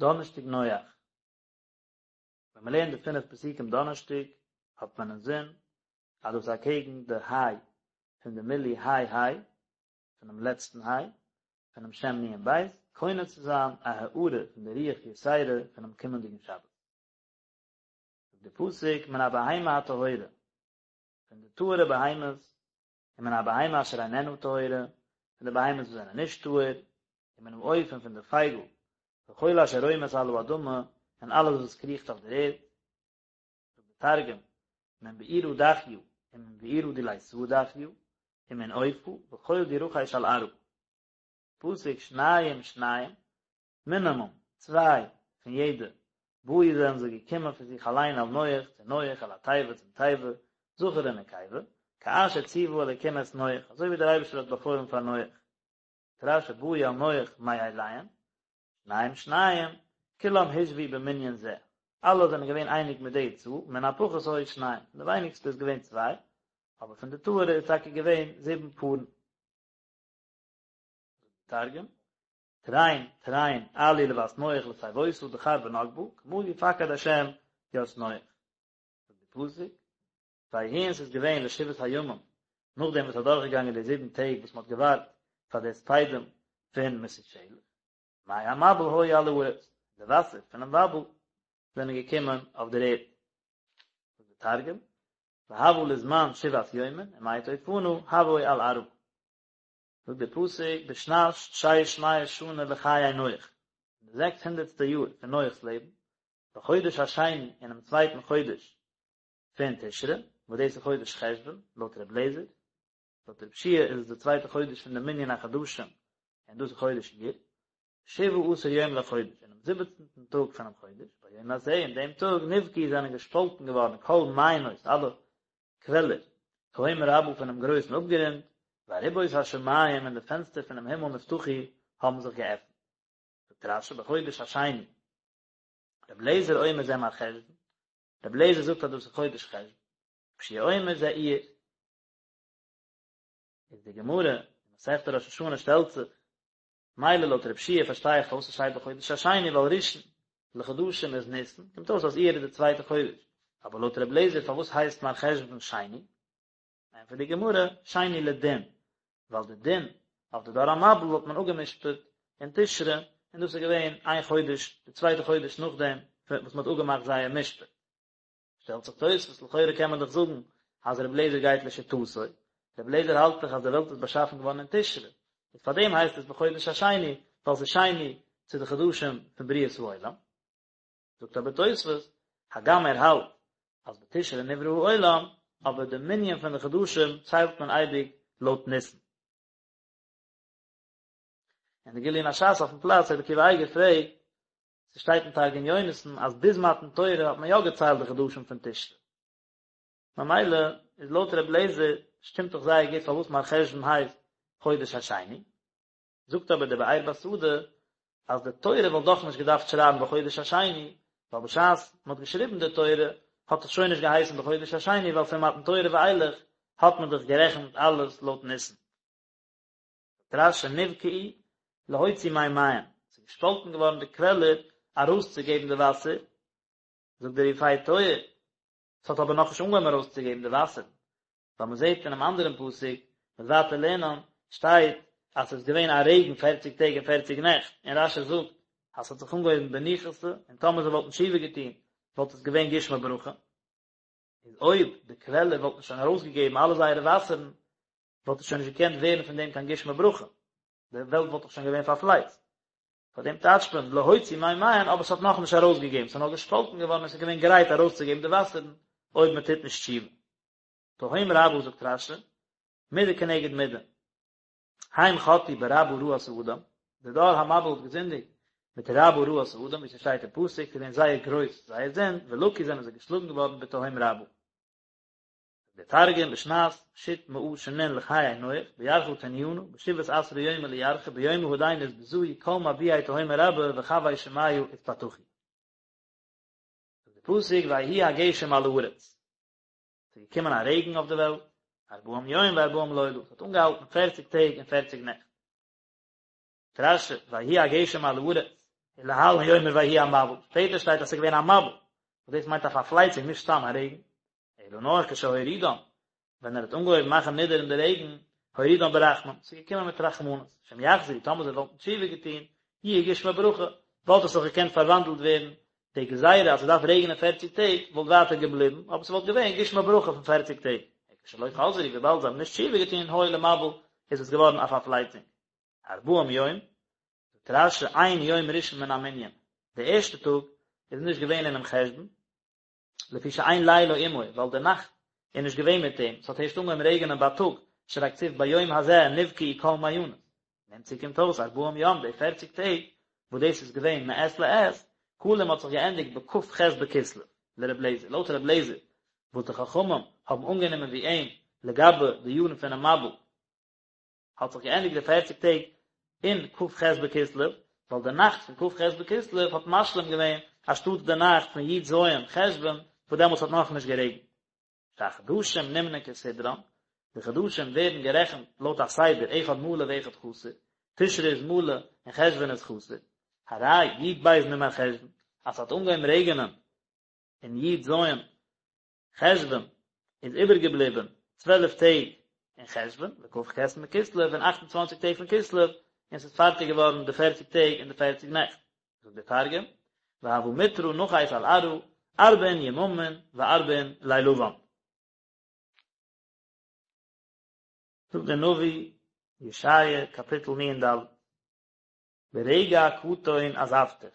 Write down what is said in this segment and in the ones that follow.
דאנערשטאג נח. ווען מען לערנט די פינף פסוקים דאנערשטאג האט מען אינזין אז דאס איז אקעגן די היי פון די מילוי היי היי פונעם לעצטן היי פונעם שם נון בית קונה צו זיין א הארה פון די רוח יתירה פונעם קומענדיגן שבת. זאגט די פסוק מן הבהמה הטהורה פון די טהור'ע בהמות ומן הבהמה אשר איננה טהורה, פון די בהמות וואס זענען נישט טהור, ומן העוף און פון די פייגל, וכל אשר רומש על האדמה, און אלעס וואס קריכט אויף דער ערד. זאגט דער תרגום, מן בעירא דחיא, ומן בעירא דליתא דחיא, ומן עופא, וכל די רחיש על ארעא. פסוק שניים שניים, מינימום צוויי פון יעדע, באו זענען זיי געקומען פון זיך אליין אל נח צו נח אל התיבה צום תיבה, זכר ונקבה, כאשר ציוה אלקים את נח, אזוי ווי דער אייבערשטער האט באפוילן פאר נח. זאגט רש"י באו אל נח מאליהן, שניים שניים, כולם הושוו במנין זה, אלע זענען געווען אייניג מיט די צאל, מן הפחות היו שניים, פון די ווייניגסטע איז געווען צוויי, אבער פון די טהור'ע איז טאקע געווען זיבן פארן. תרגום, תרין תרין עאלו לות נח לתיבותא דכר ונוקבא, כמא פקד השם ית נח. זאגט די פסוק, ויהי און ס'איז געווען לשבעת הימים, נאכדעם וואס ס'איז אדורכגעגאנגען די זיבן טעג וואס מ'האט געווארט פאר די הספדים פון מתושלח, מי המבול היו על הארץ, די וואסער פונעם מבול זענען געקומען אויף דער ערד. זאגט די תרגום, והוה לזמן שבעת יומין, ומי טופנא הוו על ארעא. זאגט דער פסוק בשנת שש מאות שנה לחיי נח, אין די זעקס הונדערטסטע יאר פון נח'ס לעבן, בחודש השני אינעם צווייטן חודש פון תשרי, וואס דאס איז חודש חשוון, לויט ר' אליעזר, לויט ר' יהושע איז עס די צווייטע חודש פון די מנין החדשים, און דאס איז חודש אייר, שבעה עשר יום לחודש, אינעם זיבעצנטן טאג פונעם חודש, ביום הזה, אין דעם טאג, נבקעו זענען געשפאלטן געווארן כל מעיינות, אלע קוועלער, תהום רבה פונעם גרויסן אפגרונט, וארובות השמים און די פענסטער פונעם הימל נפתחו האבן זיך געעפנט. זאגט רש"י בחודש השני, רבי אליעזר אומר זה מרחשוון, רבי אליעזר זאגט אז דאס איז חודש חשוון, רבי יהושע אומר זה אייר. איז די גמרא אין מסכת ראש השנה שטעלט זיך, מילא לויט רבי יהושע פארשטיי איך פארוואס עס שטייט בחודש השני ווייל ראשון לחדשים איז ניסן, קומט אויס אז אייר איז די צווייטע חודש, אבער לויט רבי אליעזר פארוואס הייסט מרחשוון שני? ענטפערט די גמרא, שני לדין, ווייל די דין אויף די דור המבול האט מען אפגע'משפט אין תשרי, און דאס איז געווען איין חודש, די צווייטע חודש נאכדעם וואס מען האט אפגעמאכט זייער משפט. שטעלט זיך תוספות, לכאורה קען מען דאך זאגן אז רבי אליעזר גייט לשיטתו, רבי אליעזר האלט דאך אז די וועלט איז באשאפן געווארן אין תשרי, איז פאר דעם הייסט עס בחודש השני, ווייל ס'איז שני צו די חדשים פון בריאת העולם. זאגט אבער תוספות, הגם ער האלט אז בתשרי נברא העולם, אבער די מנין פון די חדשים ציילט מען אייביג לויט ניסן. אין די גליון הש"ס אויפן פלאץ רבי עקיבא אייגער פרעגט, ס'שטייט אין תרגום יונתן אז ביז מתן תורה האט מען יא געציילט די חדשים פון תשרי. ממילא איז לויט רבי אליעזר שטימט דאך זייער גוט פארוואס מרחשוון הייסט חודש השני. זאגט אבער דער באר בשדה אז די תורה וואלט דאך נישט געדארפט שרייבן בחודש השני, ווייל בשעת מען האט געשריבן די תורה האט עס שוין נישט געהייסן בחודש השני ווייל פון מתן תורה ואילך האט מען דאך גערעכנט אלעס לויט ניסן. זאגט רש"י נבקעו להוציא מימיהן, ס'איז געשפאלטן געווארן די קוועלער ארויסצוגעבן די וואסער, זאגט דער יפה תואר, ס'האט אבער נאכנישט אנגעהויבן ארויסצוגעבן די וואסערן, ווייל מ'זעט אינעם אנדערן פסוק, מ'וועט ווייטער לערנען, שטייט אז ס'איז געווען א רעגן פערציג טעג און פערציג נעכט, און רש"י זאגט אז ס'האט זיך אנגעהויבן בניחותא, און טאמער זיי וואלטן תשובה געטון וואלט עס געווען גשמי ברכה. איז אויב די קוועלער וואלטן שוין ארויסגעגעבן אלע זייערע וואסערן, וואלט עס שוין נישט געקענט ווערן פון דעם קיין גשמי ברכה, די וועלט וואלט דאך שוין געווען פארפלייצט. פאר דעם טייטשט מען להוציא מימיהן, אבער עס האט נאכנישט ארויסגעגעבן, עס איז נאר געשפאלטן געווארן און עס איז געווען גרייט ארויסצוגעבן די וואסערן אויב מען טוט נישט תשובה. תהום רבה זאגט רש"י, מידה כנגד מידה. הם חטאו ברבה רעת האדם, די דור המבול האט געזינדיגט מיט רבה רעת האדם, ווי ס'שטייט אין פסוק, ס'איז געווען זייער גרויס זייער זינד, ולקו זענען זיי געשלאגן געווארן בתהום רבה. דער תרגום בשנת שית מאה שנין לחיי נח בירחא תניינא בשבעת עשרה יומא לירחא ביומא הדין אתבזעו כל מבועי תהומא רבה וחוי שמיא אתפתחו. זאגט די פסוק ויהי הגשם על הארץ, ס'איז געקומען א רעגן אויף די וועלט, ארבעים יום וארבעים לילה, ס'האט אנגעהאלטן פערציג טעג און פערציג נעכט. זאגט רש"י ויהי הגשם על הארץ. ולהלן הוא אומר ויהי המבול, שפעטער שטייט אז ס'איז געווען א מבול, וואס דאס מיינט א פארפלייצונג נישט סתם א רעגן, אלא נאר כשהורידם, ווען ער האט אנגעהויבן מאכן נידערן די רעגן, הורידם ברחמים, ס'איז געקומען מיט רחמנות, שאם יחזרו, טאמער זיי וואלטן תשובה געטון, יהיו גשמי ברכה, וואלט עס זיך געקענט פארוואנדלט ווערן, די גזירה אז ס'דארף רעגענען פערציג טעג, וואלט ווייטער געבליבן, אבער ס'וואלט געווען גשמי ברכה פון פערציג טעג. כשלא חזרו, וויבאלד זיי האבן נישט תשובה געטון, היו למבול, איז עס געווארן א פארפלייצונג. ארבעים יום, זאגט רש"י אין יום ראשון מן המנין, די ערשטע טאג איז נישט געווען אינעם חשבון, לפי שאין לילה עמו, ווייל די נאכט איז נישט געווען מיט אים, ס'האט הערשט אנגעהויבן רעגענען בייטאג, שהרי כתיב ביום הזה נבקעו כל מעיינות. נמצאו קומט אויס ארבעים יום, די פערציג טעג, וואס דאס איז געווען מעת לעת, כלים האט זיך געענדיגט בכ"ח בכסלו, לר' לעזער, לויט ר' לעזער, וואס די חכמים האבן אנגענומען ווי אים לגבי די יארן פונעם מבול, האט זיך געענדיגט די פערציג טעג אין כ"ח בכסלו, ווייל די נאכט פון כ"ח בכסלו האט משלים געווען אנשטאט די נאכט פון י"ז חשוון וואס דעמאלטס האט נאכנישט גערעגנט. שהחדשים נמנין כסדרן, די חדשים ווערן גערעכנט לויט א סדר אחד מלא ואחד חסר, תשרי איז מלא און חשוון איז חסר, הרי י"ב ממרחשוון, אז ס'האט אנגעהויבן רעגענען אין י"ז חשוון איז איבערגעבליבען צוועלף טעג אין חשוון, וכ"ח מכסלו און אכט און צוואנציג טעג פון כסלו, און ס'איז פארטיג געווארן די פערציג טעג און די פערציג נעכט. זאגט דער תרגום, והוה מטרא נחית על ארעא, ארבעין יממין וארבעין לילוון. זאגט דער נביא, ישעיה קאפיטל נ"ד, ברגע קטון עזבתיך,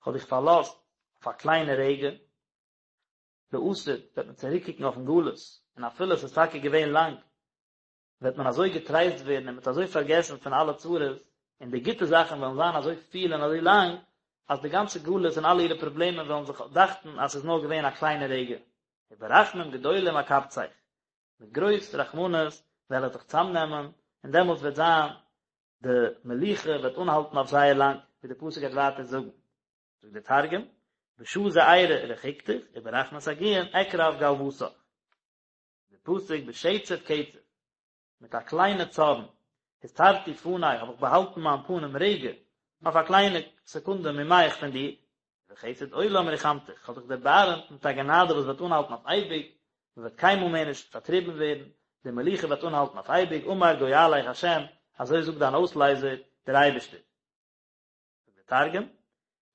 כ'האב דיך פארלאזט אויף א קליינע רגע, לעתיד וועט מען צוריקקוקן אויפן גלות, און אפילו עס איז טאקע געווען לאנג, וועט מען אזוי געטרייסט ווערן און מען וועט אזוי פארגעסן פון אלע צרות, און די גוטע זאכן וועלן זיין אזוי פיל און אזוי לאנג, אז די גאנצע גלות און אלע אירע פראבלעמען וועלן זיך דאכטן אז ס'איז נאר געווען א קליינע רגע. וברחמים גדולים אקבצך, מיט גרויס רחמנות וועל איך דיך צאמנעמען, און דעמאלטס וועט זיין די מלוכה וועט אנהאלטן אויף זייער לאנג, ווי די פסוק גייט ווייטער זאגן. זאגט דער תרגום, בשעה זעירא רחיקתיך, וברחמי סגיאין אקרב גלוותך. די פסוק בשצף קצף, מיט א קליינע צארן, הסתרתי פני, האב איך באהאלטן מיין פנים רגע, אויף א קליינע סעקונדע ממך פון דיר, ובחסד עולם רחמתיך, כ'האב דיך דערבארעמט מיט א גענאדע וואס וועט אנהאלטן אויף אייביג, מען וועט קיינמאל מער נישט פארטריבן ווערן, די מלוכה וועט אנהאלטן אויף אייביג, אמר גואליך ה', אזוי זאגט דיין אויסלייזער, דער אייבערשטער. זאגט דער תרגום,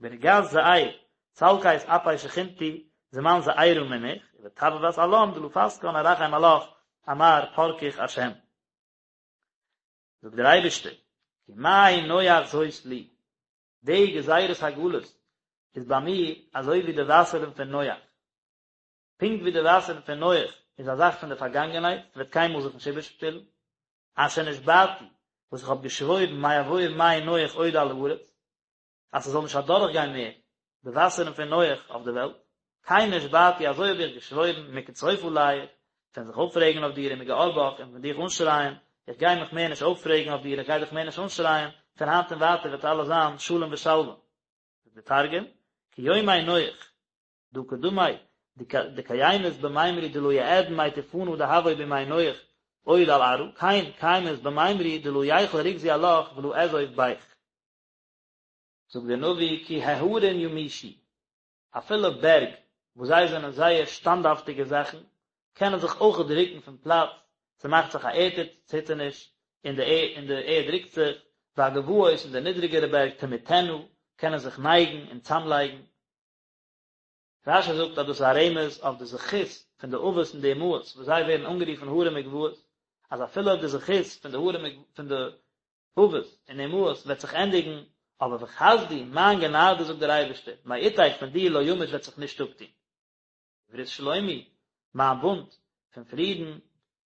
ברגז זעיר, סלקית אפי שכינתי, זמן זעירא מנך, ובטבבת עלם דלא פסקן ארחם עלך, אמר פרכך השם. זאגט דער אייבערשטער, כי מי נוח זאת לי, די גזירת הגלות איז ביי מיר אזוי ווי די וואסערן פון נוח. פונקט ווי די וואסערן פון נוח איז א זאך פון די פארגאנגענהייט, ס'וועט קיינמאל זיך נישט איבערשפילן, אשר נשבעתי, וואס איך האב געשוואוירן מעבור מי נוח עוד על הארץ, אז ס'זאל נישט אדורכגיין מער די וואסערן פון נוח אויף די וועלט, כן נשבעתי, אזוי האב איך געשוואוירן, מקצוף עליך, פון זיך אויפרעגן אויף דיר, ומגער בך, און פון דיך אנשרייען, איך גיי מיך מער נישט אויפרעגן אויף דיר, איך גיי דיך מער נישט אנשרייען, פון היינט און ווייטער וועט אלעס זיין שלום ושלווה. זאגט דער תרגום, כיומי נוח, דהא קדמי דקיימית במימרי דלא יעדון מי טופנא דהוו בימי נוח עוד על ארעא, כן קיימית במימרי דלא יחול רוגזי עלך ולא אעזוב ביך. זאגט דער נביא כי ההרים ימושו, אפילו בערג וואס זיי זענען זייער שטאנדהאפטיגע זאכן, קענען זיך אויכעט רוקן פון פלאץ, ס'מאכט זיך א ערד ציטערניש און די און די ערד רוקט זיך, והגבעות און די נידריגערע בערג תמוטנה, קענען זיך נייגן און צאמלייגן. רש"י זאגט אז דאס איז א רמז אויף די זכות פון די אבות און די אמהות וואס זיי ווערן אנגערופן הרים וגבעות, אז אפילו אויב די זכות פון די הרים פון די אבות און אמהות וועט זיך ענדיגן, אבער וחסדי, מיין גענאדע זאגט דער אייבערשטער, מאתך פון דיר לא ימוש וועט זיך נישט אפטון. וברית שלומי, מיין בונד פון פרידן,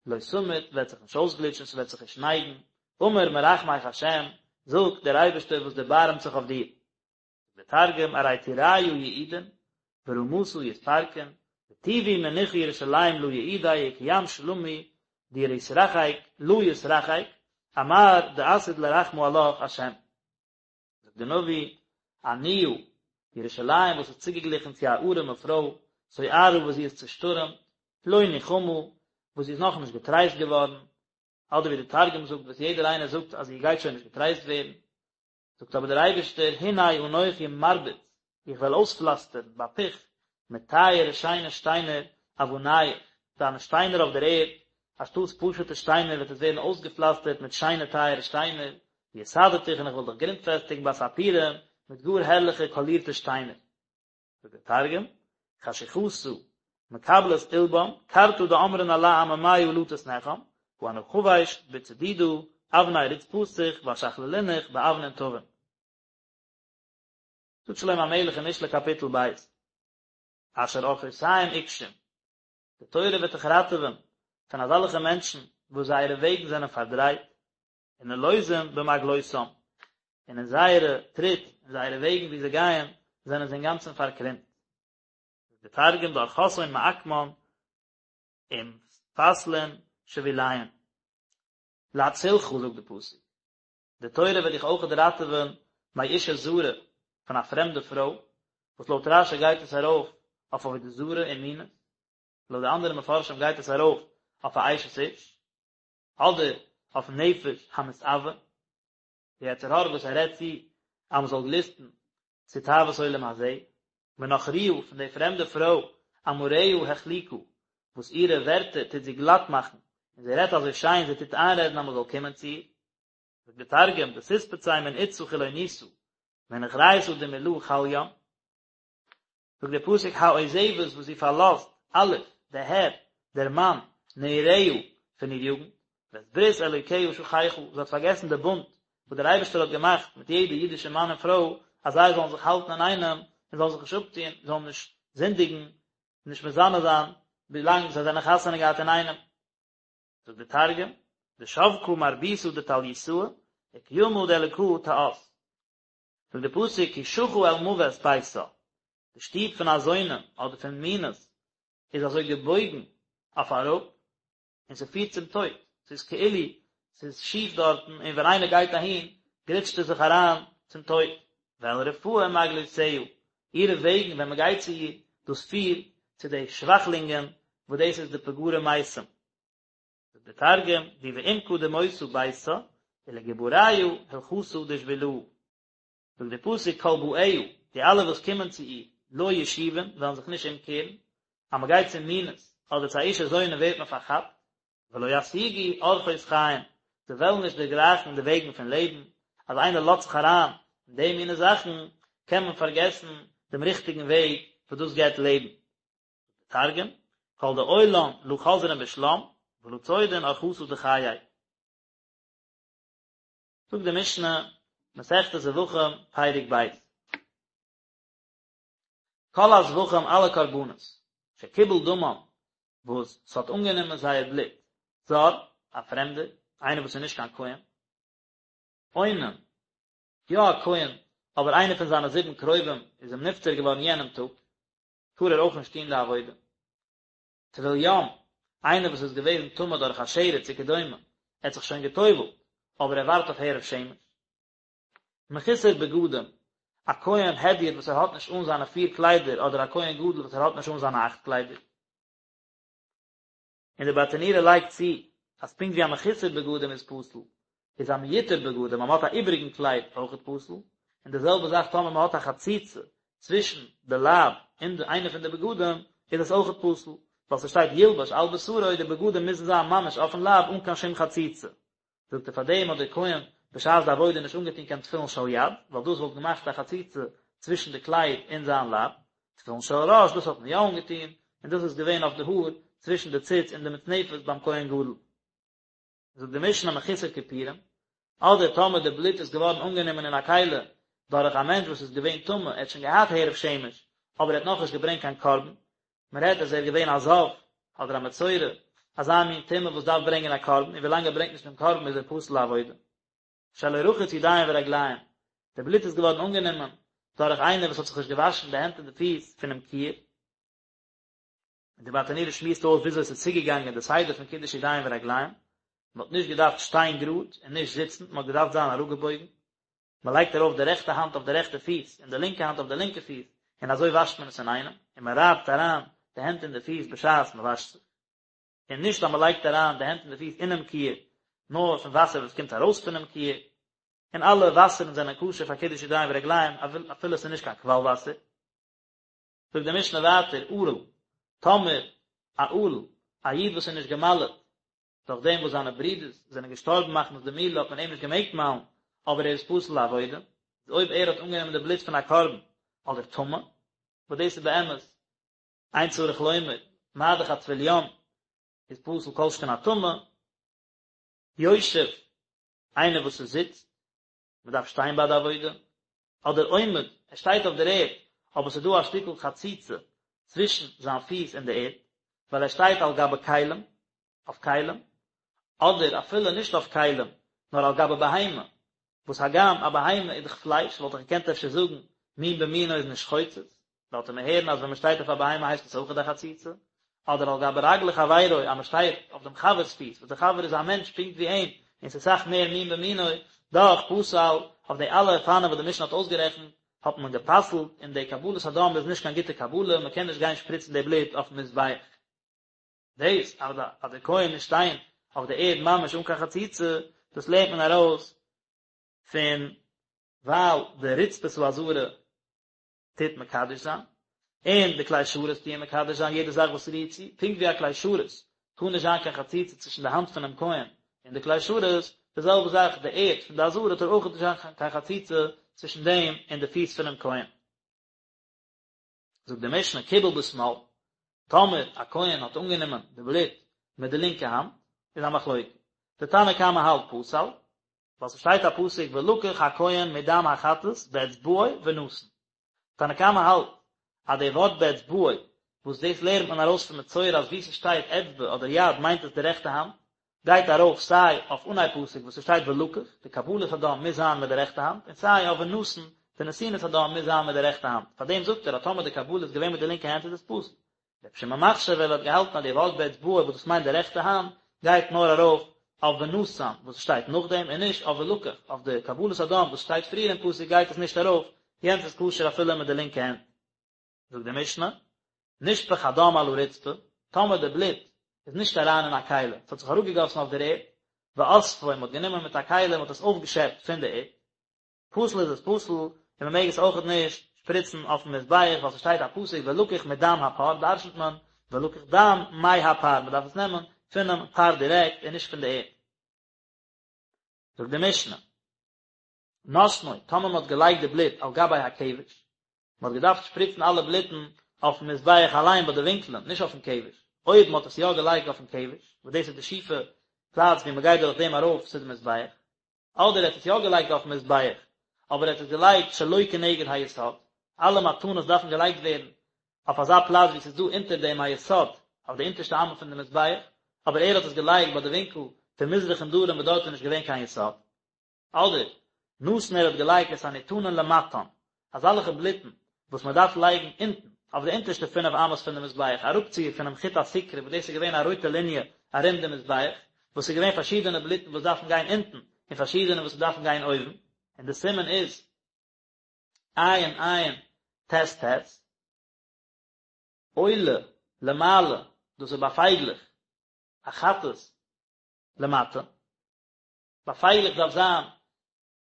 לא תמוט וועט זיך נישט אויסגליטשן, ס'וועט זיך נישט נייגן, אמר מרחמך השם, זאגט דער אייבערשטער וואס דערבארעמט זיך אויף דיר. דער תרגום ארי טוריא יעידון, ורמתא יתפרקון, וטיבו מנוחא ירושלים לא יעודי וכים שלמי דיתרחק לא יתרחק, אמר דעתיד לרחמא עלך השם. זאגט דער נביא, עניה, ירושלים וואס איז צוגעגליכן צו א ארעמע פרוי, סוערה וואס זי איז צושטורעמט, לא נוחמה, וואס זי איז נאכנישט געטרייסט געווארן, אדער ווי דער תרגום זאגט וואס יעדער איינער זאגט אז זי גייט שוין נישט געטרייסט ווערן. זאגט אבער דער אייבערשטער, הנה אנכי מרביץ, איך וועל אויספלאסטערן בפיך מיט טייערע שיינע שטיינער אבניך, דיינע שטיינער אויף דער ערד, אנשטאטס פשוטע שטיינער וועט עס ווערן אויסגעפלאסטערט מיט שיינע טייערע שטיינער, ויסדתיך און איך וועל דיך גרונטפעסטיגן בספירים מיט גאר הערליכע קאלירטע שטיינער. זאגט דער תרגום, חשוכתא מקבלת עולבן, קרתא דאמרן עלה עממיא לא תתנחם, הא אנא חביש בצדידא אבני רצפתיך ואשכללינך באבנין טבין. זאגט שלמה המלך אין משלי קאפיטל ב', אשר אורחותיהם עקשים, די תורה וועט דיך ראטעווען פון אזעלכע מענטשן וואס זייערע וועגן זענען פארדרייט, ונלוזים במעגלותם, און אין זייערע טריט, אין זייערע וועגן ווי זיי גייען, זענען זיי אינגאנצן פארקרומט. זאגט דער תרגום דארחתהון מעקמן ומפתלין שביליהון. להצילך זאגט די פסוק, די תורה וועט דיך אויכעט ראטעווען מאשה זרה, פון א פרעמדע פרוי, וואס לויט רש"י גייט עס ארויף אויף עבודה זרה און מינות, לויט די אנדערע מפרשים גייט עס ארויף אויף א אשת איש. אדער אויף נפש המתאוה, די יצר הרע וואס ער רעדט צו אז מען זאל גליסטן צו תאוות עולם הזה, מנכריה פון די פרעמדע פרוי אמריה החליקה, וואס אירע ווערטער טוט זי גלאט מאכן, און זי רעדט אזוי שיין, זי טוט איינרעדן אז מען זאל קומען צו איר. זאגט די תרגום, דתתפצי מן אתתא חילוניתא, מנוכריתא דמלא חליין. זאגט דער פסוק העוזבת וואס זי פארלאזט, אלוף, דער הער, דער מאן, נעוריה, פון איר יוגנט, ואת ברית אלוקיה שכחה, זי האט פארגעסן די בונד וואס דער אייבערשטער האט געמאכט מיט יעדע אידישע מאן און פרוי, אז זיי זאלן זיך האלטן אינאיינעם און זאלן זיך נישט אפטון, זאלן נישט זינדיגן, נישט מזנה זיין, ווילאנג זיי זענען חתונה געהאט אינאיינעם. זאגט דער תרגום, דשבקא מרביתא דטליותאה, וקימא דאלקא תאת. זאגט דער פסוק כי שחה אל מות ביתה, די שטוב פון א זונה אדער פון מינות איז אזוי געבויגן אויף אראפ, און ס'פירט צום טויט, ס'איז כאילו ס'איז שיף דארטן און ווען איינער גייט אהין גליטשט ער זיך אריין צום טויט. ואל רפאים מעגלותיה, אירע וועגן ווען מ'גייט צו איר, דאס פירט צו די שוואכלינגען וואס דאס איז די פגרי מתים. זאגט דער תרגום, די בעמקא דמותא ביתה, ולגבריא הלכתא דשבילא. זאגט דער פסוק כל באיה, די אלע וואס קומען צו איר, לא ישובון, וועלן זיך נישט אומקערן, אז מען גייט צו מינות, אדער צו א אשה זונה ווערט מען פארכאפט, ולא ישיגו ארחות חיים, זיי וועלן נישט דערגרייכן די וועגן פון לעבן, אז איינער לאזט זיך אריין אין די מיני זאכן, קען מען פארגעסן דעם ריכטיגן וועג וואס דאס געבט לעבן. תרגום, כל דעיילן לא חזרין בשלם, ולא צידעין ארחתא דחיי. זאגט די משנה, מסכת זבחים, פרק ב'. כל הזבחים אלע קרבנות, שקיבל דמם, וואס ס'האט אנגענומען זייער בלוט, זר, א פרעמדער, איינער וואס איז נישט קיין כהן, אונן, יא א כהן, אבער איינער פון זיינע זיבן קרובים איז אים נפטר געווארן יענעם טאג, טאר ער אויך נישט טון די עבודה. טבול יום, איינער וואס איז געוועזן טמא דורך א שרץ וכדומה, ער האט זיך שוין גע'טובל'ט, אבער ער ווארט אויף הערב שמש. מחוסר בגדים, א כהן הדיוט וואס ער האט נישט אן זיינע פיר קליידער אדער א כהן גדול וואס ער האט נישט אן זיינע אכט קליידער. און די ברטנורא לייגט צו אז פונקט ווי א מחוסר בגדים איז פסול, איז א מיותר בגדים אז מען האט א איבעריגן קלייד אויכעט פסול, און די זעלבע זאך טאמער מען האט א חציצה צווישן די לייב און די איינע פון די בגדים איז עס אויכעט פסול, ווייל ס'שטייט ילבש על בשרו די בגדים מוזן זיין ממש אויפן לייב אן קיין שום חציצה. זאגט ער פאר דעם האט דער כהן בשעת די עבודה נישט אנגעטון קיין תפילין של יד, ווייל דאס וואלט געמאכט א חציצה צווישן די קלייד און זיין לייב, תפילין של ראש דאס האט מען יא אנגעטון, און דאס איז געווען אויף די האר צווישן די ציץ און די מצנפת ביים כהן גדול. זאגט די משנה מחוסר כיפורים, אדער טאמער די בלוט איז געווארן אנגענומען אין א כלי דורך א מענטש וואס איז געווען טמא, ער האט שוין געהאט הערב שמש, אבער ער האט נאכנישט געברענגט קיין קרבן, מען רעדט אז ער איז געווען א זב, אדער א מצורע, אזא מין טומאה וואס דארף ברענגען א קרבן, און ווילאנג ער ברענגט נישט דעם קרבן איז ער פסול לעבודה. שלא רחץ ידיים ורגליים, די בלוט איז געווארן אנגענומען דורך איינער וואס האט זיך נישט געוואשן די הענט און די פיס פונעם כיור. און די ברטנורא שמועסט אויס וויאזוי עס איז צוגעגאנגען די סדר פון קידוש ידיים ורגליים, מען האט נישט געדארפט שטיין גראד און נישט זיצן, מען האט געדארפט זיין אראפגעבויגן, מען לייגט ארויף די רעכטע האנט אויף די רעכטע פיס און די לינקע האנט אויף די לינקע פיס, און אזוי וואשט מען עס אינאיינעם, און מען רייבט אריין די הענט און די פיס בשעת מען וואשט זיך, און נישט אז מען לייגט אריין די הענט און די פיס אינעם כיור, נאר פון וואסער וואס קומט ארויס פונעם כיור. און אלע וואסערן זענען כשר פאר קידוש ידיים ורגליים אפילו עס איז נישט קיין קוואל וואסער. זאגט די משנה ווייטער, ערל, טאמער א ערל, א איד וואס איז נישט געמל'עט, דורך דעם וואס זיינע ברידערס זענען געשטארבן מחמת די מילה האט מען אים נישט געמעגט מל'ן, אבער ער איז פסול לעבודה, איז אויב ער האט אנגענומען די בלוט פון א קרבן אדער טמא, וואס דאס איז באמת אין צריך לומר, מה דאך א טבול יום איז פסול כל שכן א טמא, יושב, איינער וואס עס זיצט, מען דארף שטיין ביי די עבודה, אדער עומד, ער שטייט אויף דער ערד, אבער עס איז דא א שטיקל חציצה צווישן זיין פיס און די ערד, ווייל ער שטייט על גבי כלים, אויף כלים, אדער אפילו נישט אויף כלים, נאר על גבי בהמה, וואס הגם א בהמה איז דאך פלייש, וואלט איך געקענט אפשר זאגן, מין במינו איז נישט חוצץ, לאזט ער מיר הערן אז ווען מען שטייט אויף א בהמה הייסט עס אויכעט א חציצה, אדער על גבי רגלי חברו אז מען שטייט אויף דעם חבר'ס פיס, וואס דער חבר איז א מענטש פונקט ווי אים, און ס'איז אסאך מער מין במינו, דאך פסל, אויף די אלע אופנים וואס די משנה האט אויסגערעכנט, האט מען גע'פסל'ט, און די קבלת הדם איז נישט קיין גוטע קבלה, מען קען נישט גיין שפריצן די בלוט אויפן מזבח. דאס אז דער כהן מוז שטיין אויף די ערד ממש אן קיין חציצה, דאס לערנט מען ארויס פון ווייל די רצפת העזרה טוט מקדש זיין, און די כלי שרת טוען מקדש זיין יעדע זאך וואס רירט צו, פונקט ווי א כלי שרת טאר נישט זיין קיין חציצה צווישן די האנט פונעם כהן און די כלי שרת, די זעלבע זאך די ערד פון די עזרה טאר אויך נישט זיין קיין חציצה צווישן דעם און די פיס פונעם כהן. זאגט די משנה קיבל בשמאל, טאמער א כהן האט אנגענומען די בלוט מיט די לינקע האנט, איז א מחלוקת, די תנא קמא האלט פסל, ווייל ס'שטייט א פסוק ולקח הכהן מדם החטאת באצבעו ונתן. תנא קמא האלט אז די ווארט באצבעו וואס דאס לערנט מען ארויס פון מצורע אז וואו ס'שטייט אצבע אדער יד מיינט עס די רעכטע האנט, גייט ארויף סיי אויף אנהייב פסוק וואס ס'שטייט ולקח, די קבלת הדם מוז זיין מיט די רעכטע האנט, און סיי אויף ונתן, די נתינת הדם מוז זיין מיט די רעכטע האנט. פארדעם זאגט ער אז טאמער די קבלה איז געווען מיט די לינקע הענט איז עס פסול. רבי שמעון מכשיר ווייל ער האט געהאלטן אז די ווארט באצבעו וואס דאס מיינט די רעכטע האנט גייט נאר ארויף אויף ונתן וואס שטייט נאכדעם און נישט אויף ולקח, אויף די קבלת הדם וואס שטייט פריער אין פסוק גייט עס נישט ארויף, יענץ איז כשר אפילו מיט די לינקע הענט. זאגט די משנה, נשפך הדם על הרצפה, טאמער די בלוט איז נישט אריין אין א כלי, עס האט זיך אראפגעגאסן אויף דער ערד, ואספו, מען האט גענומען מיט א כלי און מען האט עס אויפגעשעפט פון די ערד, פסול איז עס פסול, און מען מעג עס אויכעט נישט שפריצן אויפן מזבח, ווייל ס'שטייט א פסוק ולקח מדם הפר, דרשנ'ט מען ולקח דם מהפר, מען דארף עס נעמען פונעם פר דירעקט און נישט פון די ערד. זאגט די משנה, נתנו, טאמער מען האט געלייגט די בלוט על גבי הכבש, מען האט געדארפט שפריצן אלע בלוטן אויפן מזבח אליין ביי די ווינקלען, נישט אויפן כבש, אויב מען האט עס יא געלייגט אויפן כבש, וואס דאס איז די שיפע פלאץ ווי מען גייט דורך דעם ארויף צו די מזבח, אדער ער האט עס יא געלייגט אויפן מזבח, אבער ער האט עס געלייגט שלא כנגד היסוד, אלע מתנות דארפן געלייגט ווערן אויף אזא פלאץ ווי עס איז דא אונטער דעם א יסוד, אויף די אונטערשטע אמה פון די מזבח, אבער ער האט עס געלייגט ביי די ווינקל פון מזרח און דרום וואס דארט איז נישט געווען קיין יסוד. אדער, נתן ער האט געלייגט את הניתנין למטן, אזאלעכע בלוטן וואס מען דארף לייגן אונטן, אויף די אונטערשטע פינף אמות פון די מזבח, אראפציר פונעם חוט הסיקרא וואס דאס איז געווען א רויטע ליניע ארום די מזבח, וואס איז געווען פארשידענע בלוטן וואס דארפן גיין אונטן, און פארשידענע וואס דארפן גיין אויבן, און די סימן איז עין עין טית טית, עולה למעלה, דאס איז ביי פייגלעך, א חטאת למטה. ביי פייגלעך דארף זיין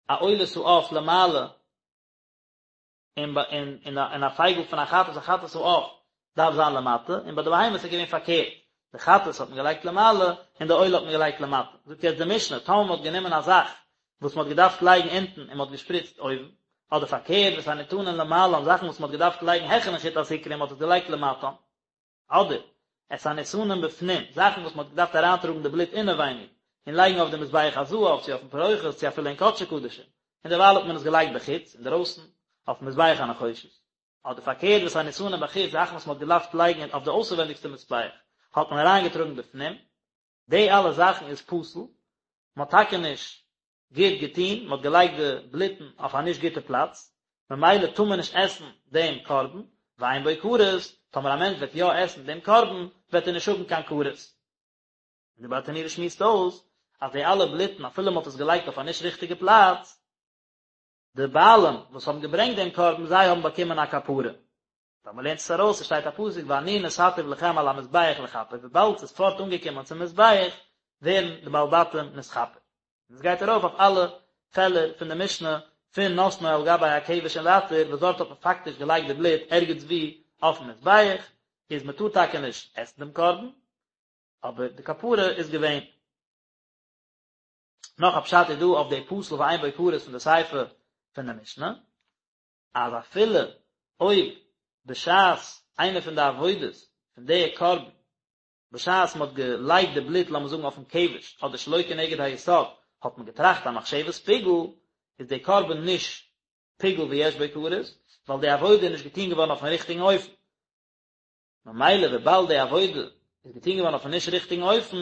א עולת העוף למעלה, און און און א פייגל פון א חטאת א חטאת העוף דארף זיין למטה, און ביי די בהמות איז געווען פארקערט, די חטאת האט מען געלייגט למעלה און די עולה האט מען געלייגט למטה. זאגט יעצט די משנה, טאמער מען האט גענומען א זאך וואס מען האט געדארפט לייגן אונטן און מען האט געשפריצט אויבן, אדער פארקערט ואת הניתנין למעלן זאכן וואס מען האט געדארפט לייגן העכערן חוט הסיקרא און מען האט עס געלייגט למטה, אדער, את הניתנים בפנים, זאכן וואס מען האט געדארפט אריינטראגן די בלוט אינעווייניג, און לייגן אויף די מזבח הזהב, צו אויפן פרוכת, צו אפילו אין קדשי קדשים, און דערווייל האט מען עס געלייגט בחוץ, אינדערויסן, אויפן מזבח הנחושת. אדער פארקערט, ואת הניתנים בחוץ, זאכן וואס מען האט געדארפט לייגן אויף די אויסערווענדיגסטע מזבח, האט מען אריינגעטראגן בפנים, די אלע זאכן איז פסול, מען האט טאקע נישט גוט געטון, מען האט געלייגט די בלוטן אויף א נישט גוטע פלאץ, ממילא טאר מען נישט עסן דעם קרבן, ואין בו כרת, טאמער א מענטש וועט יא עסן דעם קרבן, וועט ער נישט האבן קיין כרת. און די ברטנורא שמועסט אויס, אז די אלע בלוטן אפילו מען האט עס געלייגט אויף א נישט ריכטיגע פלאץ, די בעלים וואס האבן געברענגט דעם קרבן זיי האבן באקומען א כפרה. ווייל מען לערנט עס ארויס, עס שטייט א פסוק ואני נתתיו לכם על המזבח לכפר, וויבאלד ס'איז פארט אנגעקומען צום מזבח, ווערן די בעלי בתים נתכפר. און עס גייט ארויף אויף אלע פעלער פון די משנה פון נתנו על גבי הכבש און ווייטער וואס דארט האט מען פאקטיש געלייגט די בלוט ערגעץ ווי אויפן מזבח, איז מען טאר טאקע נישט עסן דעם קרבן, אבער די כפרה איז געווען. נאך א פשט איז דא אויף די פסול ואין בו כרת פון די סיפא פון די משנה, אז אפילו אויב בשעת איינע פון די עבודות פון די קרבן, בשעת מען האט געלייגט די בלוט לאמיר זאגן אויפן כבש אדער שלא כנגד היסוד האט מען געטראכט א מחשבת פיגול, איז די קרבן נישט פיגול ויש בו כרת, ווייל די עבודה איז נישט געטון געווארן אויפן ריכטיגן אופן. ממילא וויבאלד די עבודה איז געטון געווארן אויפן נישט ריכטיגן אופן,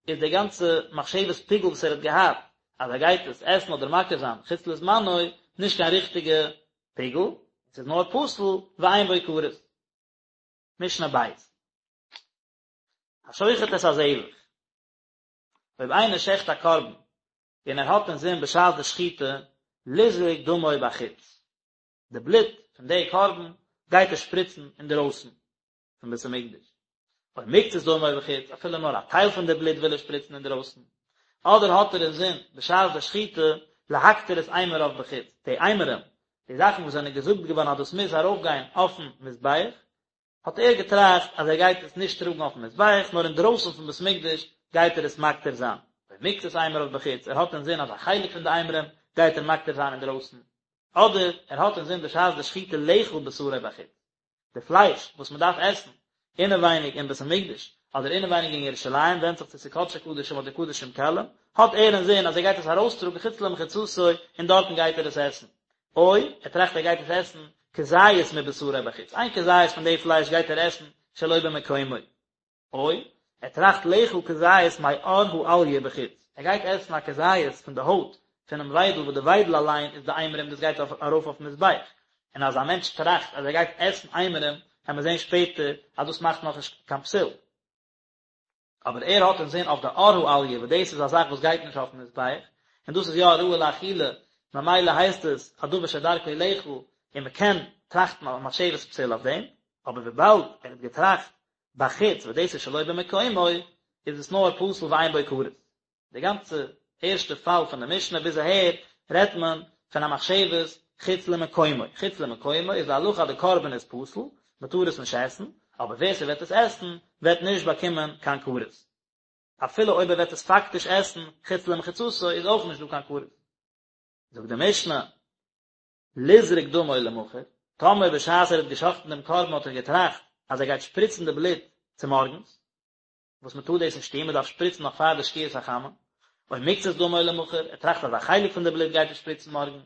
איז די גאנצע מחשבת פיגול וואס ער האט געהאט אז ער גייט עס עסן אדער מקריב זיין חוץ לזמנו, נישט קיין ריכטיגע פיגול, עס איז נאר פסול ואין בו כרת. משנה ב'. השוחט את הזבח. אויב איינער שעכט א קרבן און ער האט אינזין בשעת די שחיטה לזרוק דמו בחוץ, די בלוט פון די קרבן גייט ער שפריצן אינדרויסן פון בית המקדש, או מקצת דמו בחוץ, אפילו נאר א טייל פון די בלוט וויל ער שפריצן אינדרויסן, אדער האט ער אינזין בשעת די שחיטה להקטיר את אימוריו בחוץ, די אימורים, די זאכן וואס זענען געזאגט געווארן אז דאס מוז ארויפגיין אויפן מזבח, האט ער געטראכט אז ער גייט עס נישט טראגן אויפן מזבח, נאר אינדרויסן פון בית מקדש גייט ער עס מקטיר זיין, או מקצת אימוריו בחוץ, ער האט אינזין אז א חלק פון די אימורים גייט ער מקטיר זיין אינדרויסן, אדער ער האט אינזין בשעת די שחיטה לאכול בשרו בחוץ, די פלייש וואס מען דארף עסן אינעווייניג אין בית המקדש, אדער אינעווייניג אין ירושלים, ווענדט זיך צו ס'איז קדשי קדשים אדער קדשים קלים, האט ער אינזין אז ער גייט עס ארויסטראגן חוץ למחיצתו און דארטן גייט ער עס עסן. או, ער טראכט ער גייט עס עסן כזית מבשרו בחוץ, איין כזית פון די פלייש גייט ער עסן שלא במקומו. או, ער טראכט לאכול כזית מעור האליה בחוץ, ער גייט עסן א כזית פון די הויט פונעם וויידל וואס די וויידל אליין איז די אימורים דאס גייט ארויף אויפן מזבח, און אז א מענטש טראכט אז ער גייט עסן אימורים וועט מען זען שפעטער אז דאס מאכט נאכנישט קיין פסול. אבער ער האט אינזין אויף די עור האליה וואס דאס איז א זאך וואס גייט נישט אויפן מזבח, און דאס איז יא ראוי לאכילה, ממילא הייסט עס א דבר שדרכו לאכול, און מען קען טראכטן א מחשבת פסול אויף דעם, אבער וויבאלד ער האט געטראכט בחוץ וואס דאס איז שלא במקומו, איז עס נאר פסול ואין בו כרת. די גאנצע ערשטע פאל פון די משנה ביז אהער רעדט מען פון א מחשבת חוץ למקומו, חוץ למקומו איז די הלכה אז די קרבן איז פסול, מען טאר עס נישט עסן, אבער ווער ס'וועט עס עסן וועט נישט באקומען קיין כרת. אפילו אויב ער וועט עס פאקטיש עסן חוץ למחיצתו איז אויך נישט דא קיין כרת. זאגט די משנה, לזרוק דמו למחר, טאמער בשעת ער האט געשחט'ן דעם קרבן האט ער געטראכט אז ער גייט שפריצן די בלוט צומארגנס, וואס מען טאר דאס נישט טון, מען דארף שפריצן נאך פאר די שקיעת החמה, או מקצת דמו למחר, ער טראכט אז א חלק פון די בלוט גייט ער שפריצן מארגן,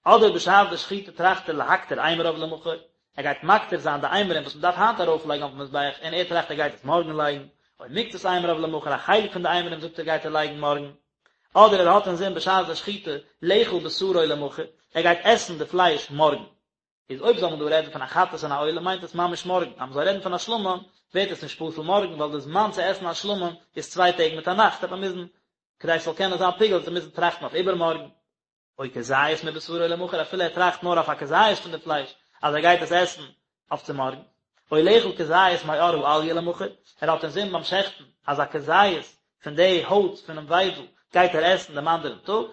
אדער בשעת די שחיטה טראכט ער להקטיר אימוריו למחר, ער גייט מקטיר זיין די אימורים וואס מען דארף היינט ארויפלייגן אויפן מזבח, און ער טראכט ער גייט עס מארגן לייגן, או מקצת אימוריו למחר, א חלק פון די אימורים זאגט ער גייט ער לייגן מארגן, אדער ער האט אינזין בשעת די שחיטה לאכול בשרו למחר, ער גייט עסן די פלייש מארגן. איז אויב זאל מען דא רעדן פון א חטאת און א עולה מיינט עס ממש מארגן, אז מען זאל רעדן פון א שלמים ווערט עס נישט פסול מארגן ווייל די זמן צו עסן א שלמים איז צוויי טעג מיט א נאכט וועט מען מוזן כדי ס'זאל קענען זיין פיגול וועט ער מוזן טראכטן אויף איבערמארגן. או כזית מבשרו למחר אפילו ער טראכט נאר אויף א כזית פון די פלייש אז ער גייט עס עסן אויף צו מארגן. או לאכול כזית מעור האליה למחר, ער האט אינזין ביים שעכטן אז א כזית פון די הויט פונעם וויידל גייט ער עסן דעם אנדערן טאג,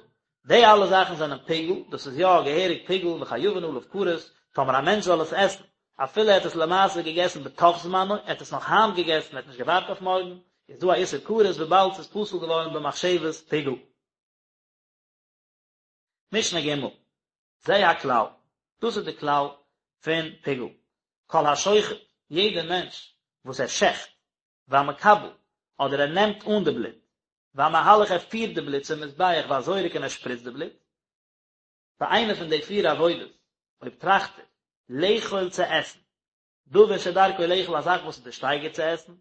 די אלע זאכן זענען פיגול, דאס איז יא געהעריג פיגול וחייבין עליו כרת, טאמער א מענטש זאל עס עסן, אפילו ער האט עס למעשה געגעסן בתוך זמנו, ער האט עס נאך היינט געגעסן, ער האט נישט געווארט אויף מארגן, איז דא א איסור כרת וויבאלד ס'איז פסול געווארן במחשבת פיגול. משנה ג', זה הכלל, דאס איז די כלל פון פיגול, כל השוחט, יעדער מענטש וואס ער שעכט, והמקבל, אדער ער נעמט אן די בלוט, והמהלך ער פירט די בלוט צום מזבח והזורק און ער שפריצט די בלוט, ביי איינע פון די פיר עבודות, אויב טראכט ער, לאכול צו עסן, דבר שדרכו לאכול א זאך וואס איז די שטייגער צו עסן,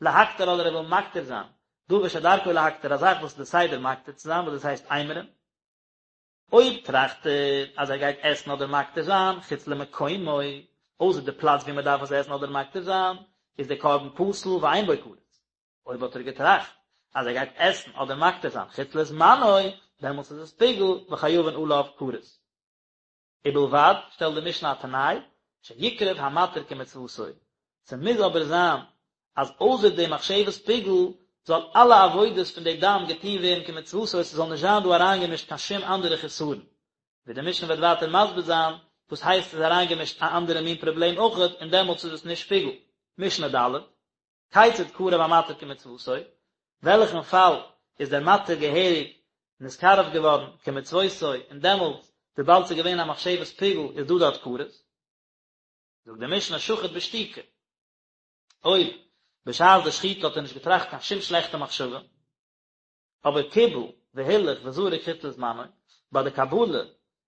להקטיר אדער ער וויל מקטיר זיין, דבר שדרכו להקטיר א זאך וואס איז די סדר מקטיר צו זיין וואס דאס הייסט אימורים, אויב טראכט ער אז ער גייט עסן אדער מקטיר זיין חוץ למקומו, אויסער די פלאץ ווי מען דארף עס עסן אדער מקטיר זיין, איז דער קרבן פסול ואין בו כרת. אויב האט ער געטראכט אז ער גייט עסן אדער מקטיר זיין חוץ לזמנו, דעמאלטס איז עס פיגול וחייבין עליו כרת. ובלבד, שטעלט די משנה א תנאי, שיקרב המתיר כמצוותו, ס'מוז אבער זיין אז אויסער די מחשבת פיגול. זאל אלע עבודות פון די דם געטוהן ווערן כמצוותו, ס'זאל נישט זיין דא אריינגעמישט קיין שום אנדערע חסרון. ווי די משנה וועט ווייטער מסביר זיין וואס הייסט ס'איז אריינגעמישט א אנדערע מין פראבלעם אויכעט און דעמאלטס איז עס נישט פיגול. משנה ד', כיצד קרב המתיר כמצוותו, וועלכן פאל איז דער מתיר געהעריג נתקרב געווארן כמצוותו און דעמאלטס וויבאלד ס'איז געווען א מחשבת פיגול איז דא דארט כרת? זאגט די משנה שחט בשתיקה, אויב בשעת די שחיטה האט ער נישט געטראכט קיין שום שלעכטע מחשבה, אבער קיבל והילך וזרק חוץ לזמנו, ביי די קבלה,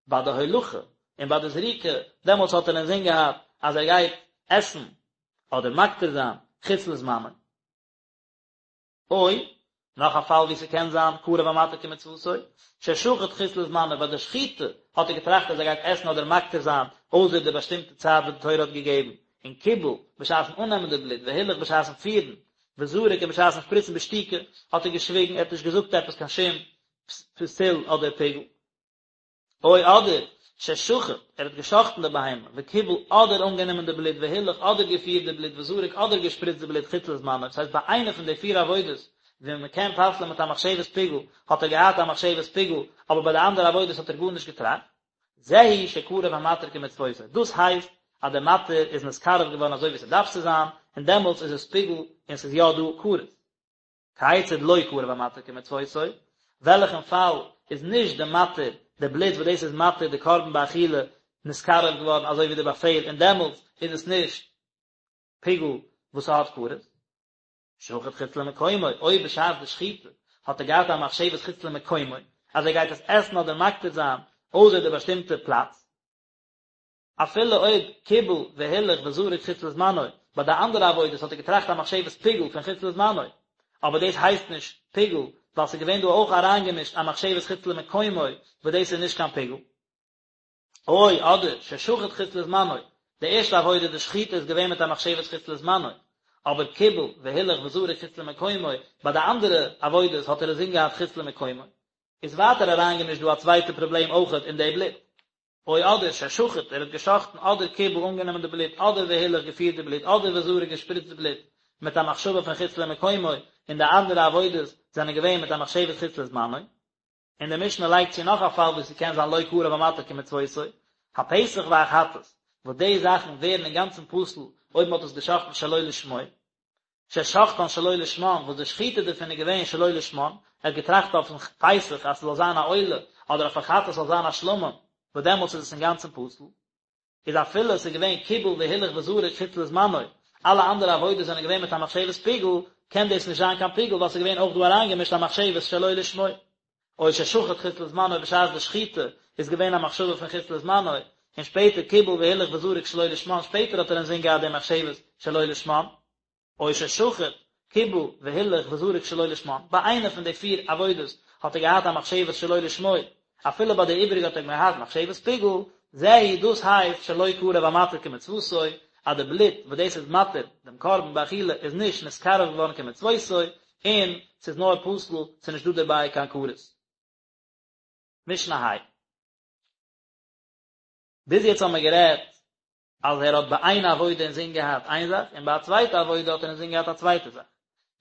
ביי די הולכה, און ביי די זריקה, דעמאלטס האט ער אינזין געהאט אז ער גייט עסן אדער מקטיר זיין חוץ לזמנו. או, נאך א פאל ווי ס'קען זיין קרב המתיר כמצוותו, ששחט חוץ לזמנו, ביי די שחיטה האט ער געטראכט אז ער גייט עסן אדער מקטיר זיין אויסער די באשטימטע צייט וואס די תורה האט געגעבן, און קיבל, בשעת'ן אננעמען די בלוט, והילך בשעת'ן פירן, וזרק און בשעת'ן שפריצן בשתיקה, האט ער געשוויגן, ער האט נישט געזאגט עפעס קיין שום פסול אדער פיגול. או אדער, ששחט, ער האט געשחט'ן די בהמה, וקיבל אדער אנגענומען די בלוט, והילך אדער געפירט די בלוט, וזרק אדער געשפריצט די בלוט חוץ לזמנו, דאס הייסט ביי איינע פון די פיר עבודות ווי מען קען פסל'ען מיט א מחשבת פיגול, האט ער געהאט א מחשבת פיגול, אבער ביי די אנדערע עבודות האט ער גארנישט געטראכט. זהו שקרב המתיר כמצוותו, דאס הייסט אז דער מתיר איז נתקרב געווארן אזוי ווי ס'דארף צו זיין, און דעמאלטס איז עס פיגול און ס'איז יא דא כרת. כיצד לא קרב המתיר כמצוותו, וועלכן פאל איז נישט די מתיר, די בלוט וואס דאס איז מתיר די קרבן באכילה, נתקרב געווארן אזוי ווי די באפעל און דעמאלטס איז עס נישט פיגול וואס ס'האט כרת. שחט חוץ למקומו, אויב בשעת די שחיטה האט ער געהאט א מחשבת חוץ למקומו, אז ער גייט עס עסן אדער מקטיר זיין אויסער די באשטימטע פלאץ, אפילו אויב קיבל והילך וזרק חוץ לזמנו, ביי די אנדערע עבודות האט ער געטראכט א מחשבת פיגול פון חוץ לזמנו, אבער דאס הייסט נישט פיגול, ווייל ס'איז געווען דא אויך אריינגעמישט א מחשבת חוץ למקומו, וואס דאס איז נישט קיין פיגול. או, אדער, ששחט חוץ לזמנו, די ערשטע עבודה די שחיטה איז געווען מיט א מחשבת חוץ לזמנו, אבער קיבל והילך וזרק חוץ למקומו, ביי די אנדערע עבודות האט ער אינזין געהאט חוץ למקומו, איז ווייטער אריינגעמישט דא א צווייטע פראבלעם אויכעט אין די בלוט. או אדער, ששחט, ער האט געשחטן, אדער קיבל אנגענומען די בלוט, אדער והילך געפירט די בלוט, אדער וזרק געשפריצט די בלוט, מיט א מחשבה פון חוץ למקומו, און די אנדערע עבודות זענען געווען מיט א מחשבת חוץ לזמנו. און די משנה לייגט צו נאך א פאל וואו ס'קען זיין לא קרב המתיר כמצוותו, הפסח והחטאת, וואס די זאכן ווערן אינגאנצן פסול אויב מ'האט עס געשחט'ן שלא לשמו, ששחטן שלא לשמן, וואס די שחיטה דערפון איז געווען שלא לשמן, ער האט געטראכט אויפן פסח אז ס'זאל זיין א עולה, אדער אויפן חטאת ס'זאל זיין א שלמים, וואס דעמאלטס איז עס אינגאנצן פסול. איז אפילו עס איז געווען קיבל והילך וזרק חוץ לזמנו, אלע אנדערע עבודות זענען געווען מיט א מחשבת פיגול, קען דאס נישט זיין קיין פיגול ווייל עס איז געווען אויך דא אריינגעמישט א מחשבת שלא לשמו. או ששחט חוץ לזמנו בשעת די שחיטה איז געווען א מחשבה פון חוץ לזמנו, און שפעטער קיבל והילך וזרק שלא לשמן, שפעטער האט ער אינזין געהאט די מחשבת שלא לשמן. או ששחט, קיבל, והילך וזרק שלא לשמן, ביי איינע פון די פיר עבודות האט ער געהאט א מחשבת שלא לשמו, אפילו ביי די איבעריגע האט ער געהאט מחשבת פיגול, זהו דאס הייסט שלא קרב המתיר כמצוותו, אז די בלוט וואס דאס איז מתיר דעם קרבן באכילה איז נישט נתקרב געווארן כמצוותו, און ס'איז נאר פסול, ס'איז נישט דא דערביי קיין כרת. משנה ה'. ביז יעצט האבן מיר גערעדט אז ער האט ביי איין עבודה אינזין געהאט איין זאך און ביי א צווייטע עבודה האט ער אינזין געהאט א צווייטע זאך.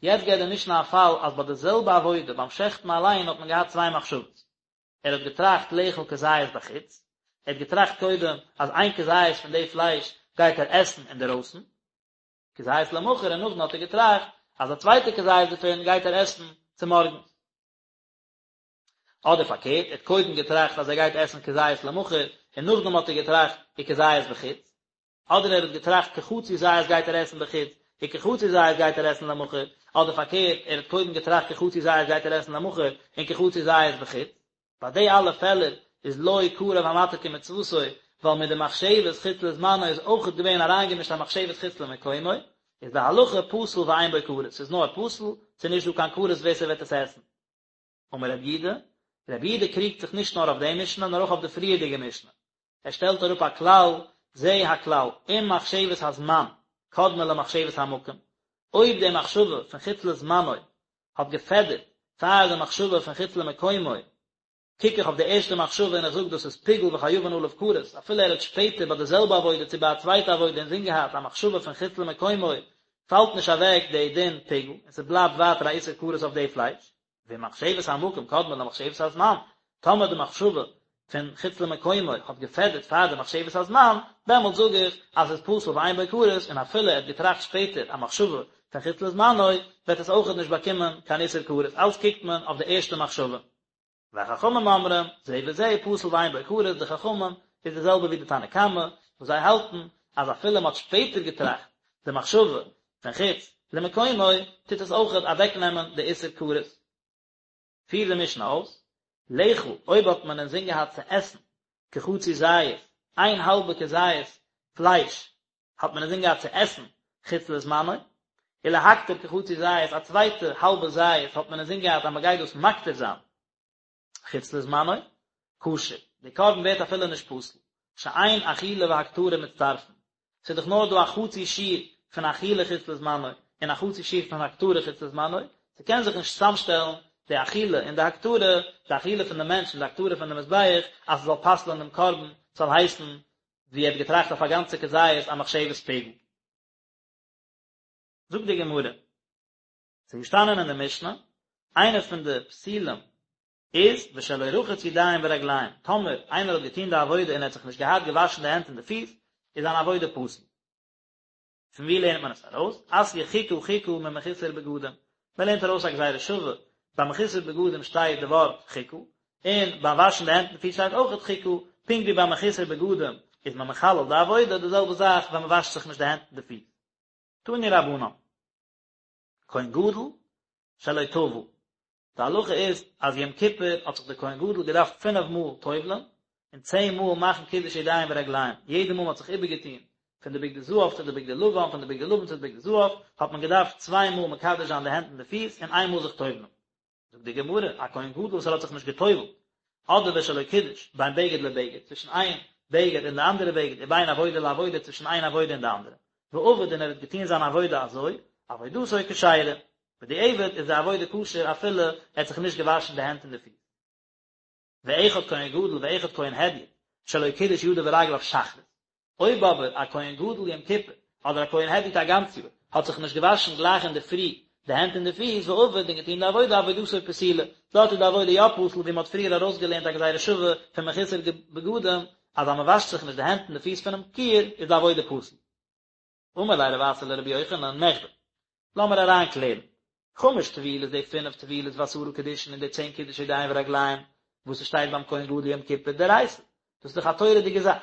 יעצט געבט די משנה א פאל אז ביי די זעלבע עבודה ביים שעכטן אליין האט מען געהאט צוויי מחשבות. ער האט געטראכט לאכול כזית בחוץ, ער האט געטראכט קודם אז איין כזית פון די פלייש גייט ער עסן אינדערויסן, כזית למחר און נאכדעם האט ער געטראכט אז א צווייטע כזית דערפון גייט ער עסן צומארגנס. אדער פארקערט, ער האט קודם געטראכט אז ער גייט עסן כזית למחר, און נאכדעם האט ער געטראכט וכזית בחוץ. אדער ער האט געטראכט כחצי זית גייט ער עסן בחוץ, וכחצי זית גייט ער עסן למחר. אדער פארקערט, ער האט קודם געטראכט כחצי זית גייט ער עסן למחר, און כחצי זית בחוץ. ביי די אלע פעלער איז לא קרב המתיר כמצוותו, ווייל מיט די מחשבת חוץ לזמנו איז אויכעט געווען אריינגעמישט א מחשבת חוץ למקומו, איז די הלכה פסול ואין בו כרת, ס'איז נאר פסול, ס'איז נישט דא קיין כרת ווער ס'וועט עס עסן. אמר רבי יהודה, רבי יהודה קריגט זיך נישט נאר אויף די משנה נאר אויך אויף די פריערדיגע משנה, ער שטעלט אראפ א כלל, זה הכלל, אם מחשבת הזמן קדמה למחשבת המקום, אויב די מחשבה פון חוץ לזמנו האט געפעדערט פאר די מחשבה פון חוץ למקומו, קוק איך אויף די ערשטע מחשבה און איך זאג דאס איז פיגול וחייבין עליו כרת, אפילו ער האט שפעטער ביי די זעלבע עבודה צו ביי א צווייטע עבודה אינזין געהאט א מחשבה פון חוץ למקומו. פאלט נישט אוועק די דין פיגול און ס'בלייבט ווייטער א איסור כרת אויף די פלייש, ואם מחשבת המקום קדמה למחשבת הזמן, טאמער די מחשבה פון חוץ למקומו האט געפעדערט פאר די מחשבת הזמן, דעמאלט זאג איך אז ס'איז פסול ואין בו כרת, און אפילו ער האט געטראכט שפעטער א מחשבה פון חוץ לזמנו, וועט עס אויכעט נישט באקומען קיין איסור כרת, אלץ קוקט מען אויף די ערשטע מחשבה. והחכמים אומרים, זה וזה פסול ואין בו כרת, די חכמים איז די זעלבע ווי די תנא קמא, וואס זיי האלטן אז אפילו מען האט שפעטער געטראכט די מחשבה פון חוץ למקומו, טוט עס אויכעט אוועקנעמען די איסור כרת. פירט די משנה אויס, לאכול, אויב האט מען אינזין געהאט צו עסן כחצי זית, איין האלבע כזית פלייש האט מען אינזין געהאט צו עסן חוץ לזמנו, ולהקטיר כחצי זית, א צווייטע האלבע זית האט מען אינזין געהאט אז מען גייט דאס מקטיר זיין חוץ לזמנו, כשר, די קרבן ווערט אפילו נישט פסול, שאין אכילה והקטרה מצטרפין, ס'איז דאך נאר דא א חצי שיעור פון אכילה חוץ לזמנו און א חצי שיעור פון הקטרה חוץ לזמנו, ס'קען זיך נישט צוזאמשטעלן די אכילה און די הקטרה, די אכילה פון די מענטש און די הקטרה פון די מזבח, אז ס'זאל פסל'ען דעם קרבן, ס'זאל הייסן ווי ער האט געטראכט אויף א גאנצע כזית א מחשבת פיגול. זאגט די גמרא, ס'איז געשטאנען אין די משנה, איינע פון די פסולים איז ושלא רחץ ידיים ורגליים, טאמער איינער האט געטון די עבודה און ער האט זיך נישט געהאט געוואשן די הענט און די פיס, איז זיין עבודה פסול. פון ווי לערנט מען עס ארויס? אתיא חוקה חוקה ממחוסר בגדים, מען לערנט ארויס א גזירה שווה, ביי מחוסר בגדים שטייט די ווארט חוקה, און ביים וואשן די הענט און פיס שטייט אויכעט חוקה, פונקט ווי ביי מחוסר בגדים איז מען מחלל די עבודה, די זעלבע זאך ווען מען וואשט זיך נישט די הענט און די פיס. תנו רבנן. כהן גדול שלא טבל, די הלכה איז אז יום כיפור האט זיך דער כהן גדול געדארפט פינף מאל טובל'ן און צען מאל מאכן קידוש ידיים ורגליים, יעדע מאל מען האט זיך איבערגעטון פון די בגדי זהב צו די בגדי לבן, פון די בגדי לבן צו די בגדי זהב, האט מען געדארפט צוויי מאל מקדש זיין די הענט און די פיס און איין מאל זיך טובל'ן. זאגט די גמרא, א כהן גדול וואס ער האט זיך נישט געטובל'ט, אדער ושלא קידש, בין בגד לבגד, צווישן איין בגד און די אנדערע בגד, ובין עבודה לעבודה, צווישן איין עבודה און די אנדערע, ועבד און ער האט געטון זיין עבודה אזוי, עבודתו כשרה, בדיעבד איז די עבודה כשר אפילו ער האט זיך נישט געוואשן די הענט און די פיס. ואחד כהן גדול ואחד כהן הדיוט שלא קידש ידיו ורגליו שחרית, אויב אבער א כהן גדול יום כיפור אדער א כהן הדיוט א גאנץ יאר האט זיך נישט געוואשן גלייך אינדערפרי די הענט און די פיס ועבד און געטון די עבודה עבודתו פסולה, דארט איז די עבודה יא פסול ווי מען האט פריער ארויסגעלערנט א גזירה שווה פון מחוסר בגדים אז אז מען וואשט זיך נישט די הענט און די פיס פונעם כיור איז די עבודה פסול. אמר ליה רב אסי לרבי יוחנן, מכדי, לאמיר אריינקלערן, חמש טבילות די פינף טבילות ועשרה קידושין און די צען קידוש ידיים ורגליים וואס ס'שטייט ביים כהן גדול יום כיפור דאורייתא, דאס איז דאך א תורה'דיגע זאך,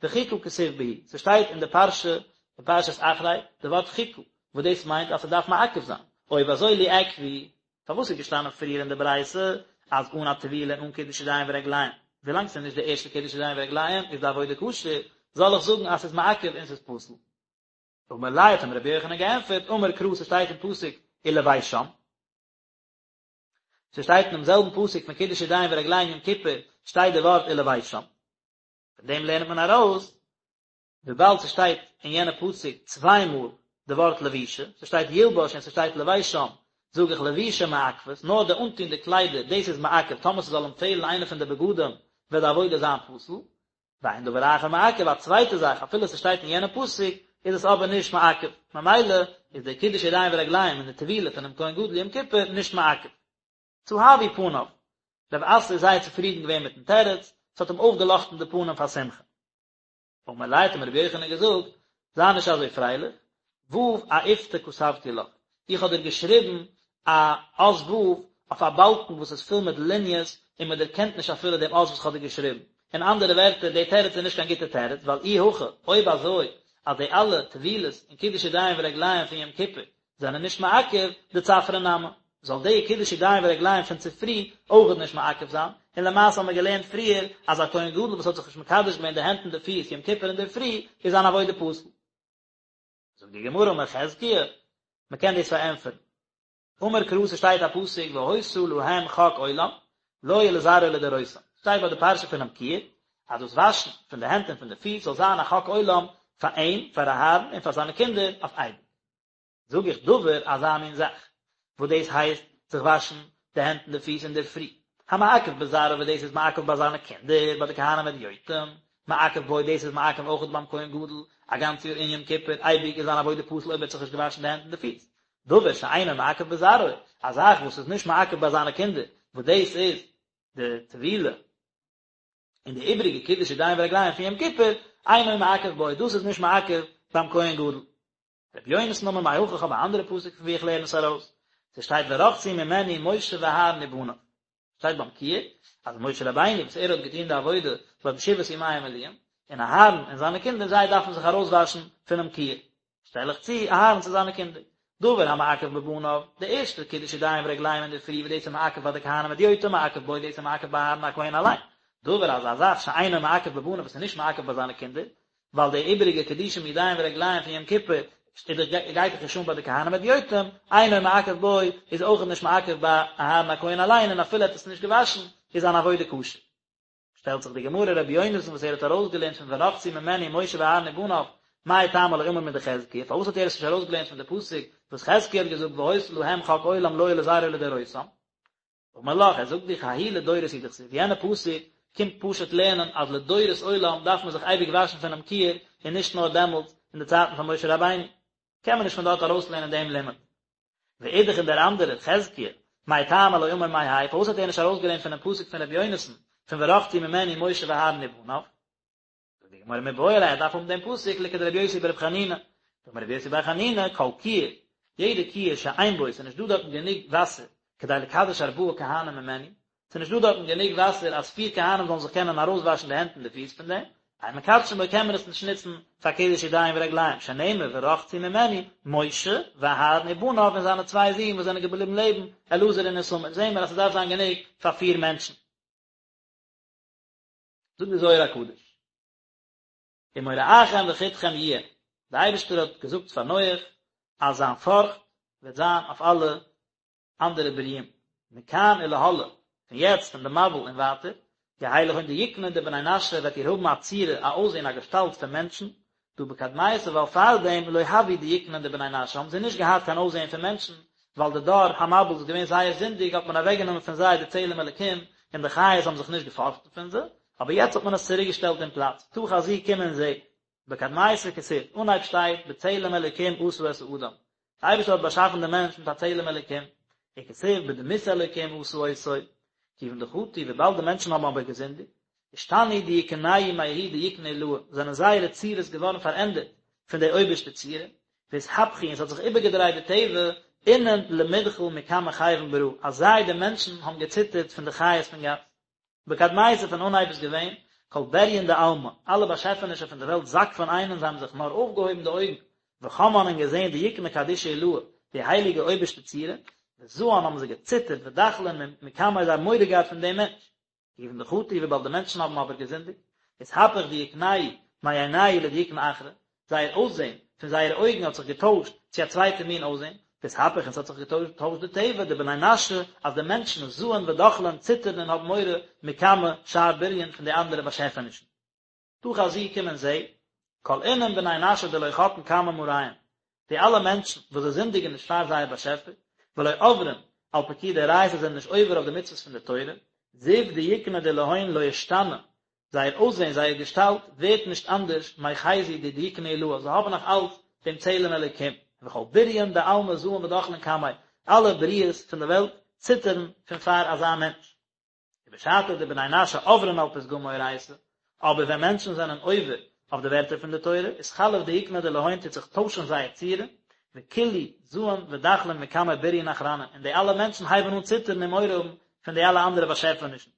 וחוקה כתיב בהו, ס'שטייט אין די פרשה אין פרשת אחרי די ווארט חוקה, וואס דאס מיינט אז ס'דארף מעכב זיין, אויב אזוי ליעכבו, פארוואס איז געשטאנען פריער אין די ברייתא אז אן א טבילה און אן קידוש ידיים ורגליים, ווילאנג ס'איז נישט די ערשטע קידוש ידיים ורגליים איז די עבודה כשר, זאל איך זאגן אז ס'איז מעכב און ס'איז פסול? אמר ליה האט אים רבי יוחנן געענטפערט, אמר קרא ס'שטייט אין פסוק ולבשם, ס'שטייט אינעם זעלבן פסוק פון קידוש ידיים ורגליים יום כיפור שטייט די ווארט ולבשם, פון דעם לערנט מען ארויס וויבאלד ס'שטייט אין יענע פסוק צוויי מאל די ווארט לבישה, ס'שטייט ילבש און ס'שטייט לבשם, זאג איך לבישה מעכבת, נאר די אנטון די קליידער, דאס איז מעכב, טאמער ס'זאל אים פעלן איינע פון די בגדים וועט די עבודה זיין פסול, ואין דבר אחר מעכב, א צווייטע זאך, אפילו ס'שטייט אין יענע פסוק, איז עס אבער נישט מעכב, ממילא איז די קידוש ידיים ורגליים און די טבילה פונעם כהן גדול יום כיפור נישט מעכב. צהבו פניו, רב אסי איז זייער צופרידן געווען מיטן תירוץ, ס'האט אים אויפגעלאכטן די פנים פאר שמחה. אמר ליה האט אים רבי יוחנן געזאגט, זיי נישט אזוי פרייליך, ו' אאיפתא כתבתי לך, איך האב דיר געשריבן א אות ו' אויף א באלקן וואס איז פול מיט ליניעס און מען דערקענט נישט אפילו דעם אות וואס איך האב דיר געשריבן. אין אנדערע ווערטער, די תירוץ איז נישט קיין גוטע תירוץ, ווייל אי הכי, אויב אזוי אז די אלע טבילות און קידוש ידיים ורגליים פון יום כיפור זענען נישט מעכב, דצפרא נמי, זאל די קידוש ידיים ורגליים פון צופרי אויכעט נישט מעכב זיין, און למעשה האבן מיר געלערנט פריער אז א כהן גדול וואס האט זיך נישט מקדש געווען די הענט און די פיס יום כיפור אינדערפרי איז זיין עבודה פסול. זאגט די גמרא אמר חזקיה, מען קען דאס פארענטפערן. אמר קרא ס'שטייט א פסוק והיתה להם חק עולם לו ולזרעו לדורותם, שטייט ביי די פרשה פונעם כיור אז דאס וואשן פון די הענט און פון די פיס זאל זיין א חק עולם פאר אים, פאר אהרן און פאר זיינע קינדער אויף אייביג. זאג איך דבר אזא מין זאך, וואס דאס הייסט זיך וואשן די הענט און די פיס אינדערפרי, המעכב בזרעו וואס דאס איז מעכב ביי זיינע קינדער, ביי די כהנים הדיוטים, מעכב בו, דאס איז מעכב אויכעט ביים כהן גדול א גאנץ יאר אין יום כיפור, אייביג איז זיין עבודה פסול אויב ער האט זיך נישט געוואשן די הענט און די פיס. דבר שאינו מעכב בזרעו, א זאך וואס איז נישט מעכב ביי זיינע קינדער, וואס דאס איז די טבילה און די איבריגע קידוש ידיים ורגליים פון יום כיפור, אינו מעכב בו, דאס איז נישט מעכב ביים כהן גדול. רבי יונתן אמר מהכא איך האב א אנדערע פסוק פון ווי איך לערן עס ארויס, ס'שטייט ורחצו ממנו משה ואהרן ובניו, שטייט ביים כיור אז משה רבינו וואס ער האט געטון די עבודה ביי די שבעת ימי המילואים, און אהרן און זיינע קינדער זיי דארפן זיך ארויסוואשן פונעם כיור, שטעל איך צו אהרן צו זיינע קינדער. דבר המעכב בבניו, די ערשטע קידוש ידיים ורגליים אינדערפרי וואס דאס איז מעכב ביי די כהנים הדיוטים מעכב בו דאס איז מעכב ביי אהרן הכהן אליין. דבר אז א זאך שאינו מעכב בבניו וואס איז נישט מעכב ביי זיינע קינדער, ווייל די איבעריגע קידושים ידיים ורגליים פון יום כיפור גייט דאך נישט אן ביי די כהנים הדיוטים, אינו מעכב בו איז אויך נישט מעכב ביי אהרן הכהן אליין און אפילו ער האט עס נישט געוואשן איז זיין עבודה כשר. שטעלט זיך די גמרא רבי יונתן וואס ער האט ארויסגעלערנט פון ורחצו ממנו משה ואהרן ובניו, מאי טעמא לא אמר מדחזקיה, פארוואס האט ער עס נישט ארויסגעלערנט פון די פסוק וואס חזקיה האט געזאגט והיתה להם חק עולם לו ולזרעו לדורותם? אמר לך, ער זאגט דיך ההוא לדורות הוא דכתיב, יענע פסוק קומט פשוט לערנען אז לדורות עולם דארף מען זיך אייביג וואשן פונעם כיור און נישט נאר דעמאלטס אין די צייטן פון משה רבינו, קען מען נישט פון דארט ארויסלערנען דעם לימוד. ואידך און דער אנדערער, חזקיה, מאי טעמא לא אמר מהאי, פארוואס האט ער נישט ארויסגעלערנט פונעם פסוק פון רבי יונתן, פון ורחצו ממנו משה ואהרן ובניו? זאגט די גמרא מיבעי ליה ער דארף האבן דעם פסוק לכדרבי יוסי ברבי חנינא, דאמר רבי יוסי בר חנינא, כל כיור, יעדע כיור שאין בו, ס'איז נישט דא דארטן גענוג וואסער, כדי לקדש ארבעה כהנים ממנו, ס'איז נישט דא דארטן גענוג וואסער אז פיר כהנים זאלן זיך קענען ארויסוואשן די הענט און די פיס פון דעם, אין מקדשין בו קען מען עס נישט נוצן פאר קידוש ידיים ורגליים, שנאמר ורחצו ממנו, משה, ואהרן ובניו און זיינע צוויי זין וואס זענען געבליבן לעבן, אלעזר און איתמר, זעהן מיר אז ס'דארף זיין גענוג פאר פיר מענטשן. זאגט די זוהר הקדוש, ומוראכם וחתכם יהיה, די אייבערשטער האט געזאגט פאר נח אז זיין פארכט וועט זיין אויף אלע אנדערע ברואים, מכאן ולהלאה, פון יעצט פון די מבול און ווייטער, יהא לכון דיוקנא דבני נשא וועט איר האבן א צורה, א אויסזען, א געשטאלט פון מענטשן, דהא בקדמיתא ווייל פארדעם לא הוו דיוקנין דבני נשא האבן זיי נישט געהאט קיין אויסזען פון מענטשן, ווייל די דור המבול איז געווען זייער זינדיג האט מען אוועקגענומען פון זיי די צלם אלקים און די חיות האבן זיך נישט געפארכטן פון זיי, אבער יעצט האט מען עס צוריק געשטעלט אין פלאץ, תא חזי קום און זע. בקדמיתא כתיב, אנהייב שטייט בצלם אלקים עשה את האדם, די אייבערשטער האט באשאפן דעם מענטש מיט א צלם אלקים, וכתיב בדמות אלקים עשה אותו, כיוון דחטו וויבאלד די מענטשן האבן אבער געזינדיגט, אשתני דיוקנייהו מההוא דיוקנא עילאה, זענען זייערע צורות געווארן פארענדערט פון די אויבערשטע צורה, ואתהפכו און ס'האט זיך איבערגעדרייט די טבע, אינון למדחל מקמי כיוון ברא, אז זיי די מענטשן האבן געציטערט פון די חיות פון גאס. בקדמיתא פון אנהייב איז געווען, כל בריין דעלמא, אלע באשעפענישן פון די וועלט זקפן עיינין זיי האבן זיך נאר אויפגעהויבן די אויגן, וחמן און געזען דיוקנא קדישא עילאה, די הייליגע אויבערשטע צורה, וזען האבן זיי געציטערט ודחלין מקמיה זיי האבן מורא געהאט פון דעם מענטש. כיוון דחטו וויבאלד די מענטשן האבן אבער געזינדיגט, אתהפך דיוקנייהו מעינייהו לדיוקנא אחרא, זייער אויסזען פון זייערע אויגן האט זיך געטוישט צו א צווייטע מין אויסזען, ואתהפך און ס'האט זיך געטוישט די טבע, דבני נשא, אז די מענטשן זען ודחלין ציטערן און האבן מורא מקמי שאר בריין פון די אנדערע באשעפענישן. תא חזי קום און זע, כל אינון בני נשא דלא חטאן קמי מאריהון, די אלע מענטשן וואס זיי זינדיגן נישט פאר זייער באשעפער, ולא עברין על פקודי אורייתא זענען נישט עובר אויף די מצוות פון די תורה, זיו דיוקנא דלהון לא אשתני, זייער אויסזען, זייער געשטאלט, ווערט נישט אנדערש, מחזו דדיוקנא עילאה, זיי האבן נאך אלץ דעם צלם אלוקים, וכל בריין דעלמא זעין ודחלין קמיה, אלע בריות פון די וועלט ציטערן פון פאר אזא מענטש. ובשעתא דבני נשא עברין על פתגמי אורייתא, אבער ווען מענטשן זענען עובר אויף די ווערטער פון די תורה, אתחלף דיוקנא דלהון טוט זיך טוישן זייער צורה, וכולהו זעין ודחלין מקמי בריין אחרנין, און די אלע מענטשן הייבן אן ציטערן און מורא האבן פון די אלע אנדערע באשעפענישן.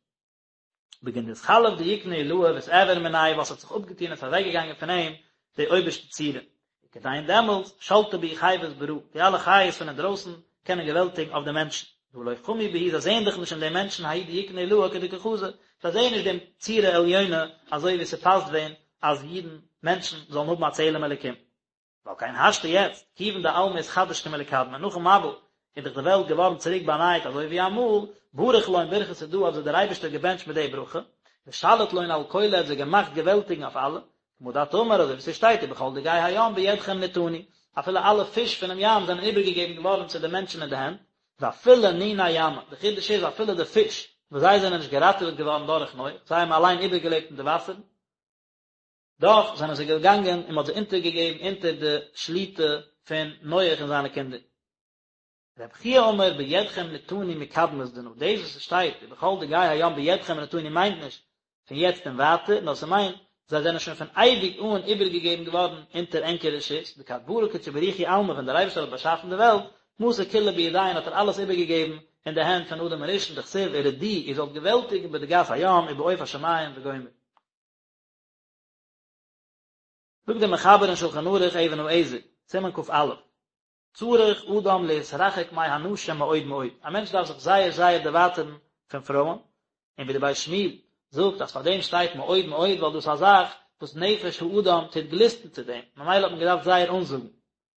בגין דאתחלף דיוקנא עילאה ואתעבר מניה ווייל ס'האט זיך אפגעטון און ס'איז אוועקגעגאנגען פון אים די אויבערשטע צורה. וכדין דעמאלטס שלטי בהו חיות ברא, די אלע חיות פון אינדרויסן קענען געוועלטיגן אויף די מענטשן. דהא לא חמו בהו זיי זעען דאך נישט אין די מענטשן ההוא דיוקנא עילאה כדקא חזו, זיי זעען נישט דעם צורה עליונה אזוי ווי ס'פאסט ווען אז אידן, מענטשן, זאלן האבן א צלם אלוקים. ועל כן השתא יעצט, כיוון דעלמא אתחדש כמלקדמא, נאכן מבול איז דאך די וועלט געווארן צוריק באנייט אזוי ווי אמאל, בריך לון ברכתא דא האט זיי דער אייבערשטער געבענטשט מיט די ברכה, ושליט לון על כולא האט זיי געמאכט געוועלטיגן אויף אלע, כמה דאת אמר אזוי ווי ס'שטייט ובכל דגי הים בידכם נתנו, אפילו אלע פיש פונעם ים זענען איבערגעגעבן געווארן צו די מענטשן אין די הענט, ואפילו ניני ימא, די חידוש איז אפילו די פיש וואס זיי זענען נישט געראטעוועט געווארן דורך נח, זיי האבן אליין איבערגעלעבט אין די וואסערן. דאך זענען זיי געגאנגען און מען האט זיי אונטערגעגעבן אונטער די שליטה פון נח און זיינע קינדער. רבי חייא אמר בידכם נתנו מקדמת דנא, דאס וואס עס שטייט ובכל דגי הים בידכם נתנו מיינט נישט פון יעצט און ווייטער, נאר ס'מיינט זיי זענען שוין פון אייביג אן איבערגעגעבן געווארן אונטער ענקער רשות, דכד ברא קודשא בריך הוא עלמא ווען דער אייבערשטער האט באשאפן די וועלט, מסר כולא בידיהון האט ער אלעס איבערגעגעבן אין די הענט פון אדם הראשון דכתיב ורדו איר זאלט געוועלטיגן בדגת הים ובעוף השמים וגומר. זאגט דער מחבר אין שלחן ערוך אבן העזר, סימן כ"א, צריך אדם להתרחק מהנשים מאוד מאוד, א מענטש דארף זיך זייער זייער דערווייטערן פון פרויען, און ווי דער בית שמואל זאגט אז פאר דעם שטייט מאוד מאוד ווייל דאס איז א זאך וואס נפש האדם טוט גליסטן צו דעם, ממילא האט מען געדארפט זייער אנזאגן.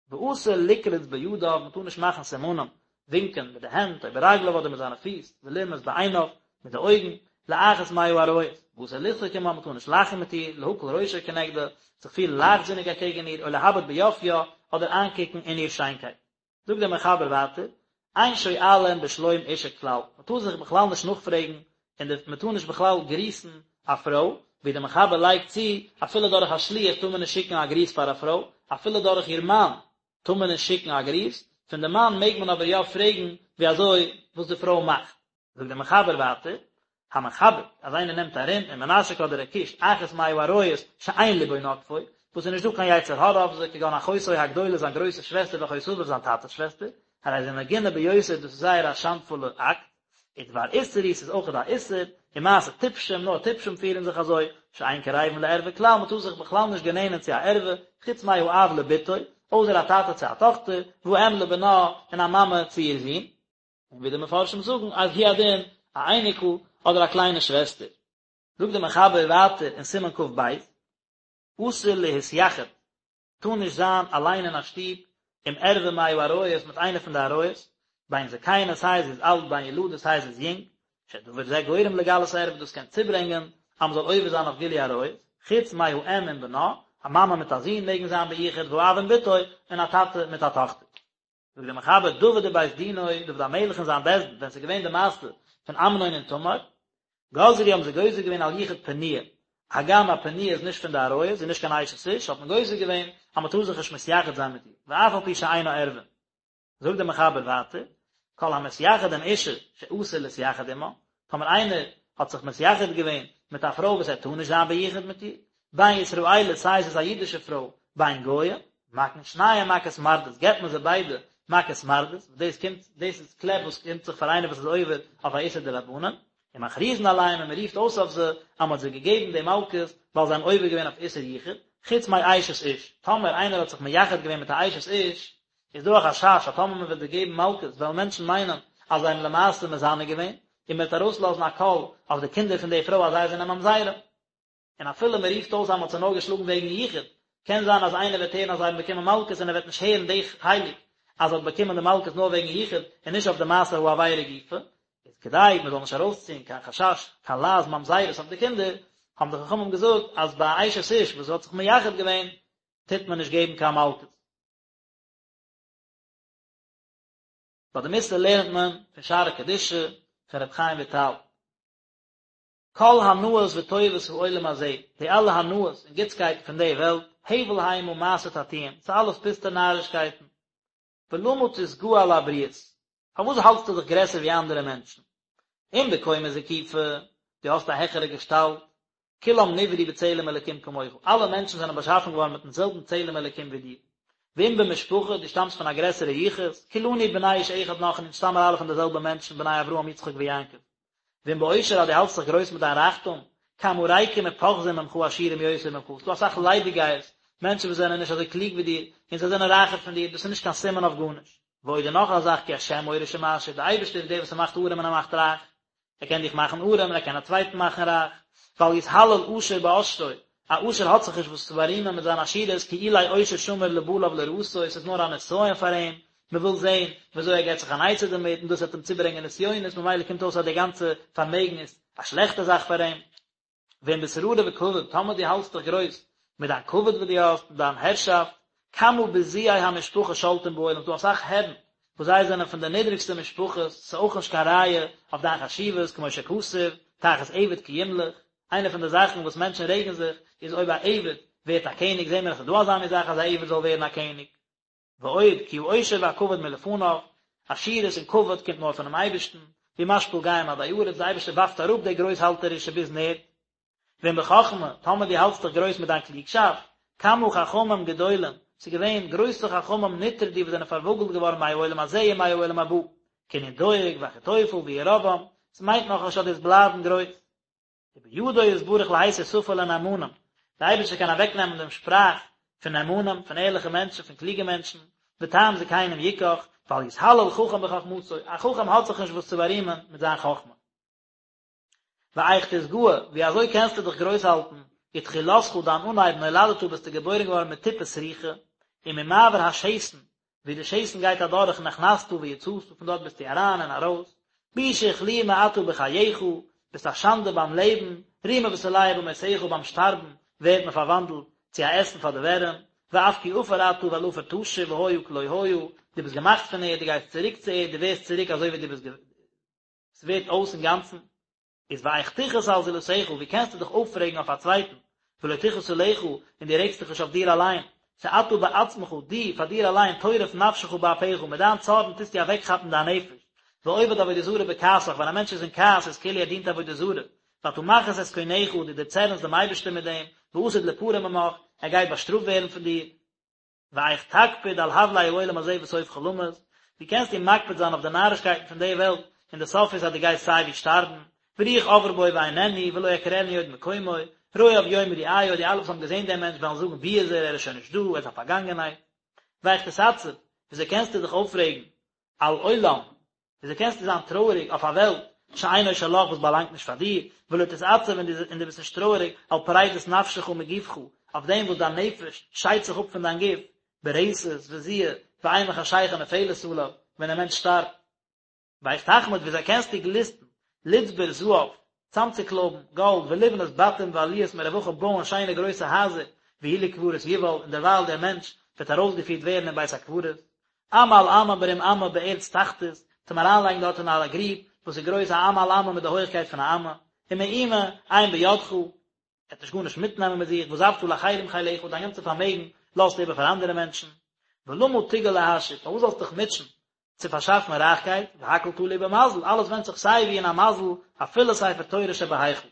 ואסור לקרוץ בידיו, מען טאר נישט מאכן סימנים, ווינקען מיט די הענט, או ברגליו אדער מיט זיינע פיס, ולרמוז בעיניו, מיט די אויגן, לאחת מהעריות, ואסור לצחוק עמה, מען טאר נישט לאכן מיט איר, להקל ראשו כנגדה, זיך פירן לייכטזיניג אקעגן איר, או להביט ביופיה, אדער איינקוקן אין איר שיינקייט. זאגט דער מחבר ווייטער, אין שואלין בשלום אשה כלל, מען טאר זיך בכלל נישט נאכפרעגן, און מען טאר נישט בכלל גריסן א פרוי, ווי דער מחבר לייגט צו, אפילו דורך א שליח טאר מען נישט שיקן א גריס פאר א פרוי, אפילו דורך איר מאן טאר מען נישט שיקן א גריס, פון די מאן מעג מען אבער יא פרעגן ווי אזוי וואס די פרוי מאכט. זאגט דער מחבר ווייטער, המחבק, אז איינער נעמט ארום ומנשק אדער ער קישט אחת מהעריות שאין לבו נוטפו, וואס איז נישט דא קיין יצר הרע אויף זיי, כגון אחותו הגדולה זיין גרויסע שוועסטער ואחות אביו זיין טאטע'ס שוועסטער, הרי זה מגונה ביותר דאס איז זייער א שאנדפולע אקט, ודבר איסור הוא ס'איז אויכעט א איסור, ומעשה טיפשים, נאר טיפשים פירן זיך אזוי, שאין קרבין לערווה כלל, מ'טאר זיך בכלל נישט גענענען צו א ערווה, חוץ מהאב לבתו, אויסער א טאטע צו א טאכטער, והאם לבנה, און א מאמע צו איר זון. און ווי די מפרשים זאגן אז הוא הדין א אייניקל אדער א קליינע שוועסטער. זאגט דער מחבר ווייטער אין סימן כ"ב, אסור להתייחד, טאר נישט זיין אליין אין א שטוב עם ערווה מהעריות מיט איינע פון די עריות, בין זקנה סיי זי איז אלט בין ילדה סיי זי איז יונג, שדבר זה גורם לגלות ערווה דאס קען צוברענגען אז מען זאל עובר זיין אויף גילוי עריות, חוץ מהאם עם בנה, א מאמע מיט א זון מעגן זיין ביחוד והאב עם בתו, און א טאטע מיט א טאכטער. זאגט דער מחבר דוד ובית דינו, דוד המלך און זיין בית דין, ווען ס'איז געווען די מעשה פון אמנון און תמר, גזרו האבן זיי גוזר געווען על יחוד פנויה, הגם א פנויה איז נישט פון די עריות, זי איז נישט קיין אשת איש, האט מען גוזר געווען אז מען טאר זיך נישט מתייחד זיין מיט איר, ואף על פי שאינה ערווה. זאגט דער מחבר ווייטער, כל המתייחד עם אשה שאסור להתייחד עמה, טאמער איינער האט זיך מתייחד געווען מיט א פרוי וואס ער טאר נישט זיין ביחוד מיט איר, בין ישראלית סיי זי איז א אידישע פרוי, בין גויה, מכין שניהם מכת מרדות, געבט מען זיי ביידע מכת מרדות, וואס דאס קומט, דאס איז קלעפ וואס קומט זיך פאר איינער וואס איז עובר אויף א איסור דרבנן, ומכריזין עליהם און מען רופט אויס אויף זיי אז מען האט זיי געגעבן די מלקות ווייל זיי האבן עובר געווען אויף איסור יחוד, חוץ מאשת איש, טאמער איינער האט זיך מייחד געווען מיט א אשת איש, איז דא א חשש אז טאמער מען וועט זיי געבן מלקות וועלן מענטשן מיינען אז זיי האבן למעשה מזנה געווען, און מען וועט ארויסלאזן א קול אויף די קינדער פון די פרוי אז זיי זענען ממזרים. און אפילו מען רופט אויס אז מען האט זיי נאר געשלאגן וועגן יחוד, קען זיין אז איינער וועט הערן אז זיי האבן באקומען מלקות און ער וועט נישט הערן די חלק אז זי האט באקומען די מלקות נאר וועגן יחוד און נישט אויף די מעשה העבירה גופא, איז כדי מען זאל נישט ארויסציען קיין חשש קיין לעז ממזרות אויף די קינדער, האבן די חכמים געזאגט אז ביי א אשת איש וואס האט זיך מייחד געווען טוט מען נישט געבן קיין מלקות. ביי די מוסר לערנט מען פון שערי קדושה פון רבי חיים וויטאל. כל הנאות וטובות העולם הזה, די אלע הנאות און גוטסקייטן פון די וועלט, הבל המה מעשה תעתועים, ס'איז אלעס פוסטע נארישקייטן. ולמה תתגאה על הבריות? פארוואס האלטסטו דיך גרעסער ווי אנדערע מענטשן? אם בקומה זקופה, דו האסט א העכערע געשטאלט, כולם נבראו בצלם אלקים כמוך, אלע מענטשן זענען באשאפן געווארן מיטן זעלבן צלם אלקים ווי דיר. ואם במשפחה, דו שטאמסט פון א גרעסערע יחוס, כולנו בני איש אחד אנחנו, אונז שטאמען אלע פון די זעלבע מענטשן, בני אברהם יצחק ויעקב. ואם בעושר אז דו האלטסט זיך גרויס מיט דיין רייכטום, כמה ריקים ופוחזים ממך עשירים יותר ממך, ס'דא אסאך ליידיגייערס, מענטשן וואס זענען נישט אזוי קלוג ווי דיר, און זיי זענען רייכער פון דיר, דאס איז נישט קיין סימן אויף גארנישט. ועוד און נאך א זאך כי השם מוריש ומעשיר, דער אייבערשטער איז דער וואס ער מאכט ארעם און ער מאכט רייך, ער קען דיך מאכן ארעם און ער קען א צווייטן מאכן רייך, ואל יתהלל עשיר בעשרו, א עשיר האט זיך נישט וואס צו בארימען מיט זיין עשירות, כי אולי עושר שמור לבעליו לרעתו, ס'איז נאר א נסיון פאר אים, מען וויל זען ווי אזוי ער געבט זיך אן עצה דערמיט, און דאס וועט אים צוברענגען נסיונות, ממילא קומט אויס אז די גאנצע פארמעגן איז א שלעכטע זאך פאר אים. ואם בשררה וכבוד, טאמער דו האלטסט דיך גרויס מיט דיין כבוד וואס דו האסט, און דיין הערשאפט, כמה בזויי המשפחה שולטים בעולם, ס'דא אסאך הערן וואס זיי זענען פון די נידריגסטע משפחות, ס'איז אויך נישט קיין ראיה אויף דיין חשיבות, כמו שכתוב, תחת עבד כי ימלוך, איינע פון די זאכן וואס מענטשן רעגן זיך איז אויב א עבד. ווערט א קעניג, זעהן מיר אז ס'איז דא אזא מין זאך אז א עבד זאל ווערן א קעניג. ועוד, כי העושר והכבוד מלפניו, עשירות און כבוד קומט נאר פונעם אייבערשטן, והוא משפיל גאים עדי ארץ, דער אייבערשטער ווארפט אראפ די גרויסהאלטערישע ביזן ערד. ואם בחכמה, טאמער דו האלטסט דיך גרויס מיט דיין קלוגשאפט, כמה חכמים גדולים, ס'איז געווען גרויסע חכמים נטרדו וואס זענען פארוואגלט געווארן מהעולם הזה ומהעולם הבא, כענין דואג ואחיתופל וירבעם, ס'מיינט נאכנישט אז דו וועסט בלייבן גרויס. ובידו יתברך להסיר שפה לנאמנים, דער אייבערשטער קען אוועקנעמען דעם שפראך פון נאמנים, פון ערליכע מענטשן, פון קלוגע מענטשן, וטעם זקנים יקח, ואל יתהלל חכם בחכמתו, א חכם האט זיך נישט וואס צו בארימען מיט זיין חכמה. ואיך תתגאה, ווי אזוי קענסטו דיך גרויס האלטן, ותחילתך דיין אנהייב נולדת ביסטו געבוירן געווארן מטיפה סרוחה, וממעבר השתן, ווי די שתן גייט אדורך נכנסת ויצאת, פון דארט ביסטו אריין און ארויס, בושה וכלימה אתה בחייך, ביסט א שאנדע ביים לעבן, רימה ותולעה במותך ביים שטארבן ווערט מען פארוואנדלט צו א עסן פאר די ווערים, ואף כי עפר אתה ואל עפר תשוב והיה כלא היה, דו ביסט געמאכט פון ערד, דו גייסט צוריק צו ערד, דו ווערסט צוריק אזוי ווי דו ביסט ס'ווערט אויס אינגאנצן. איז ואיך תכעוס על זולתך, ווי קענסטו דיך אויפרעגן אויף א צווייטן, ולא תכעוס עליך, און דו רעגסט דיך נישט אויף דיר אליין, שאתה בעצמך, דו, פאר דיר אליין, טורף נפשך באפיך, מיט דיין צארן טוסטו אוועקכאפן דיין נפש, ועובד עבודה זרה בכעסך, ווען א מענטש איז אין כעס איז כאילו ער דינט עבודה זרה, ואתה מכעיס את קונך, דו דערצערנסט דעם אייבערשטען מיט דעם, ועתיד ליפרע ממך, ער גייט באשטראפט ווערן פון דיר. ואיך תקפיד על הבלי העולם הזה וסופך למות, ווי קענסטו מקפיד זיין אויף די נארישקייטן פון די וועלט, און די סוף איז אז דו גייסט סיי ווי שטארבן, ורוח עברה בו ואיננו, ולא יכירנו עוד מקומו, רואיו יאמרו איה, די אלע וואס האבן געזען דעם מענטש וועלן זאגן וואו איז ער, ער איז שוין נישט דא, ער איז א פארגאנגענהייט. ואיך תתעצב, וויאזוי קענסטו דיך אויפרעגן על עולם, וויאזוי קענסטו זיין טרויעריג אויף א וועלט שאינו שלך וואס באלאנגט נישט פאר דיר, ולא תתעצב און דו ביסט נישט טרויעריג על פרידת נפשך מגופך, אויף דעם וואס דיין נפש שיידט זיך אפ פון דיין גוף, ברתת וזיע ואימה חשכה נופלת עליו, ווען דער מענטש שטארבט. ואיך תחמוד וויאזוי קענסטו גליסטן, לצבור זהב, צאמצוקלויבן גאלד ולבנות בתים ועליות מרוחה בויען שיינע גרויסע הייזער והוא לקברות יובל און דערווייל דער מענטש וועט ארויסגעפירט ווערן אין בית הקברות אמה על אמה ברום אמה בארץ תחתית צום אריינלייגן דארט אין א גריב וואס איז גרויס א אמה על אמה מיט די הויכקייט פון א אמה ומאומה אין בידך ער וועט נישט גארנישט מיטנעמען מיט זיך ועזבת לאחרים חילך דיין גאנצע פארמעגן לאזטו איבער פאר אנדערע מענטשן ולמה תגע להעשיר פארוואס זאלסטו דיך מוטשען צו פארשאפן רייכקייט, והכל תלוי במזל, אלעס ווענדט זיך סיי ווי אין א מזל, אפילו ספר תורה שבהיכל.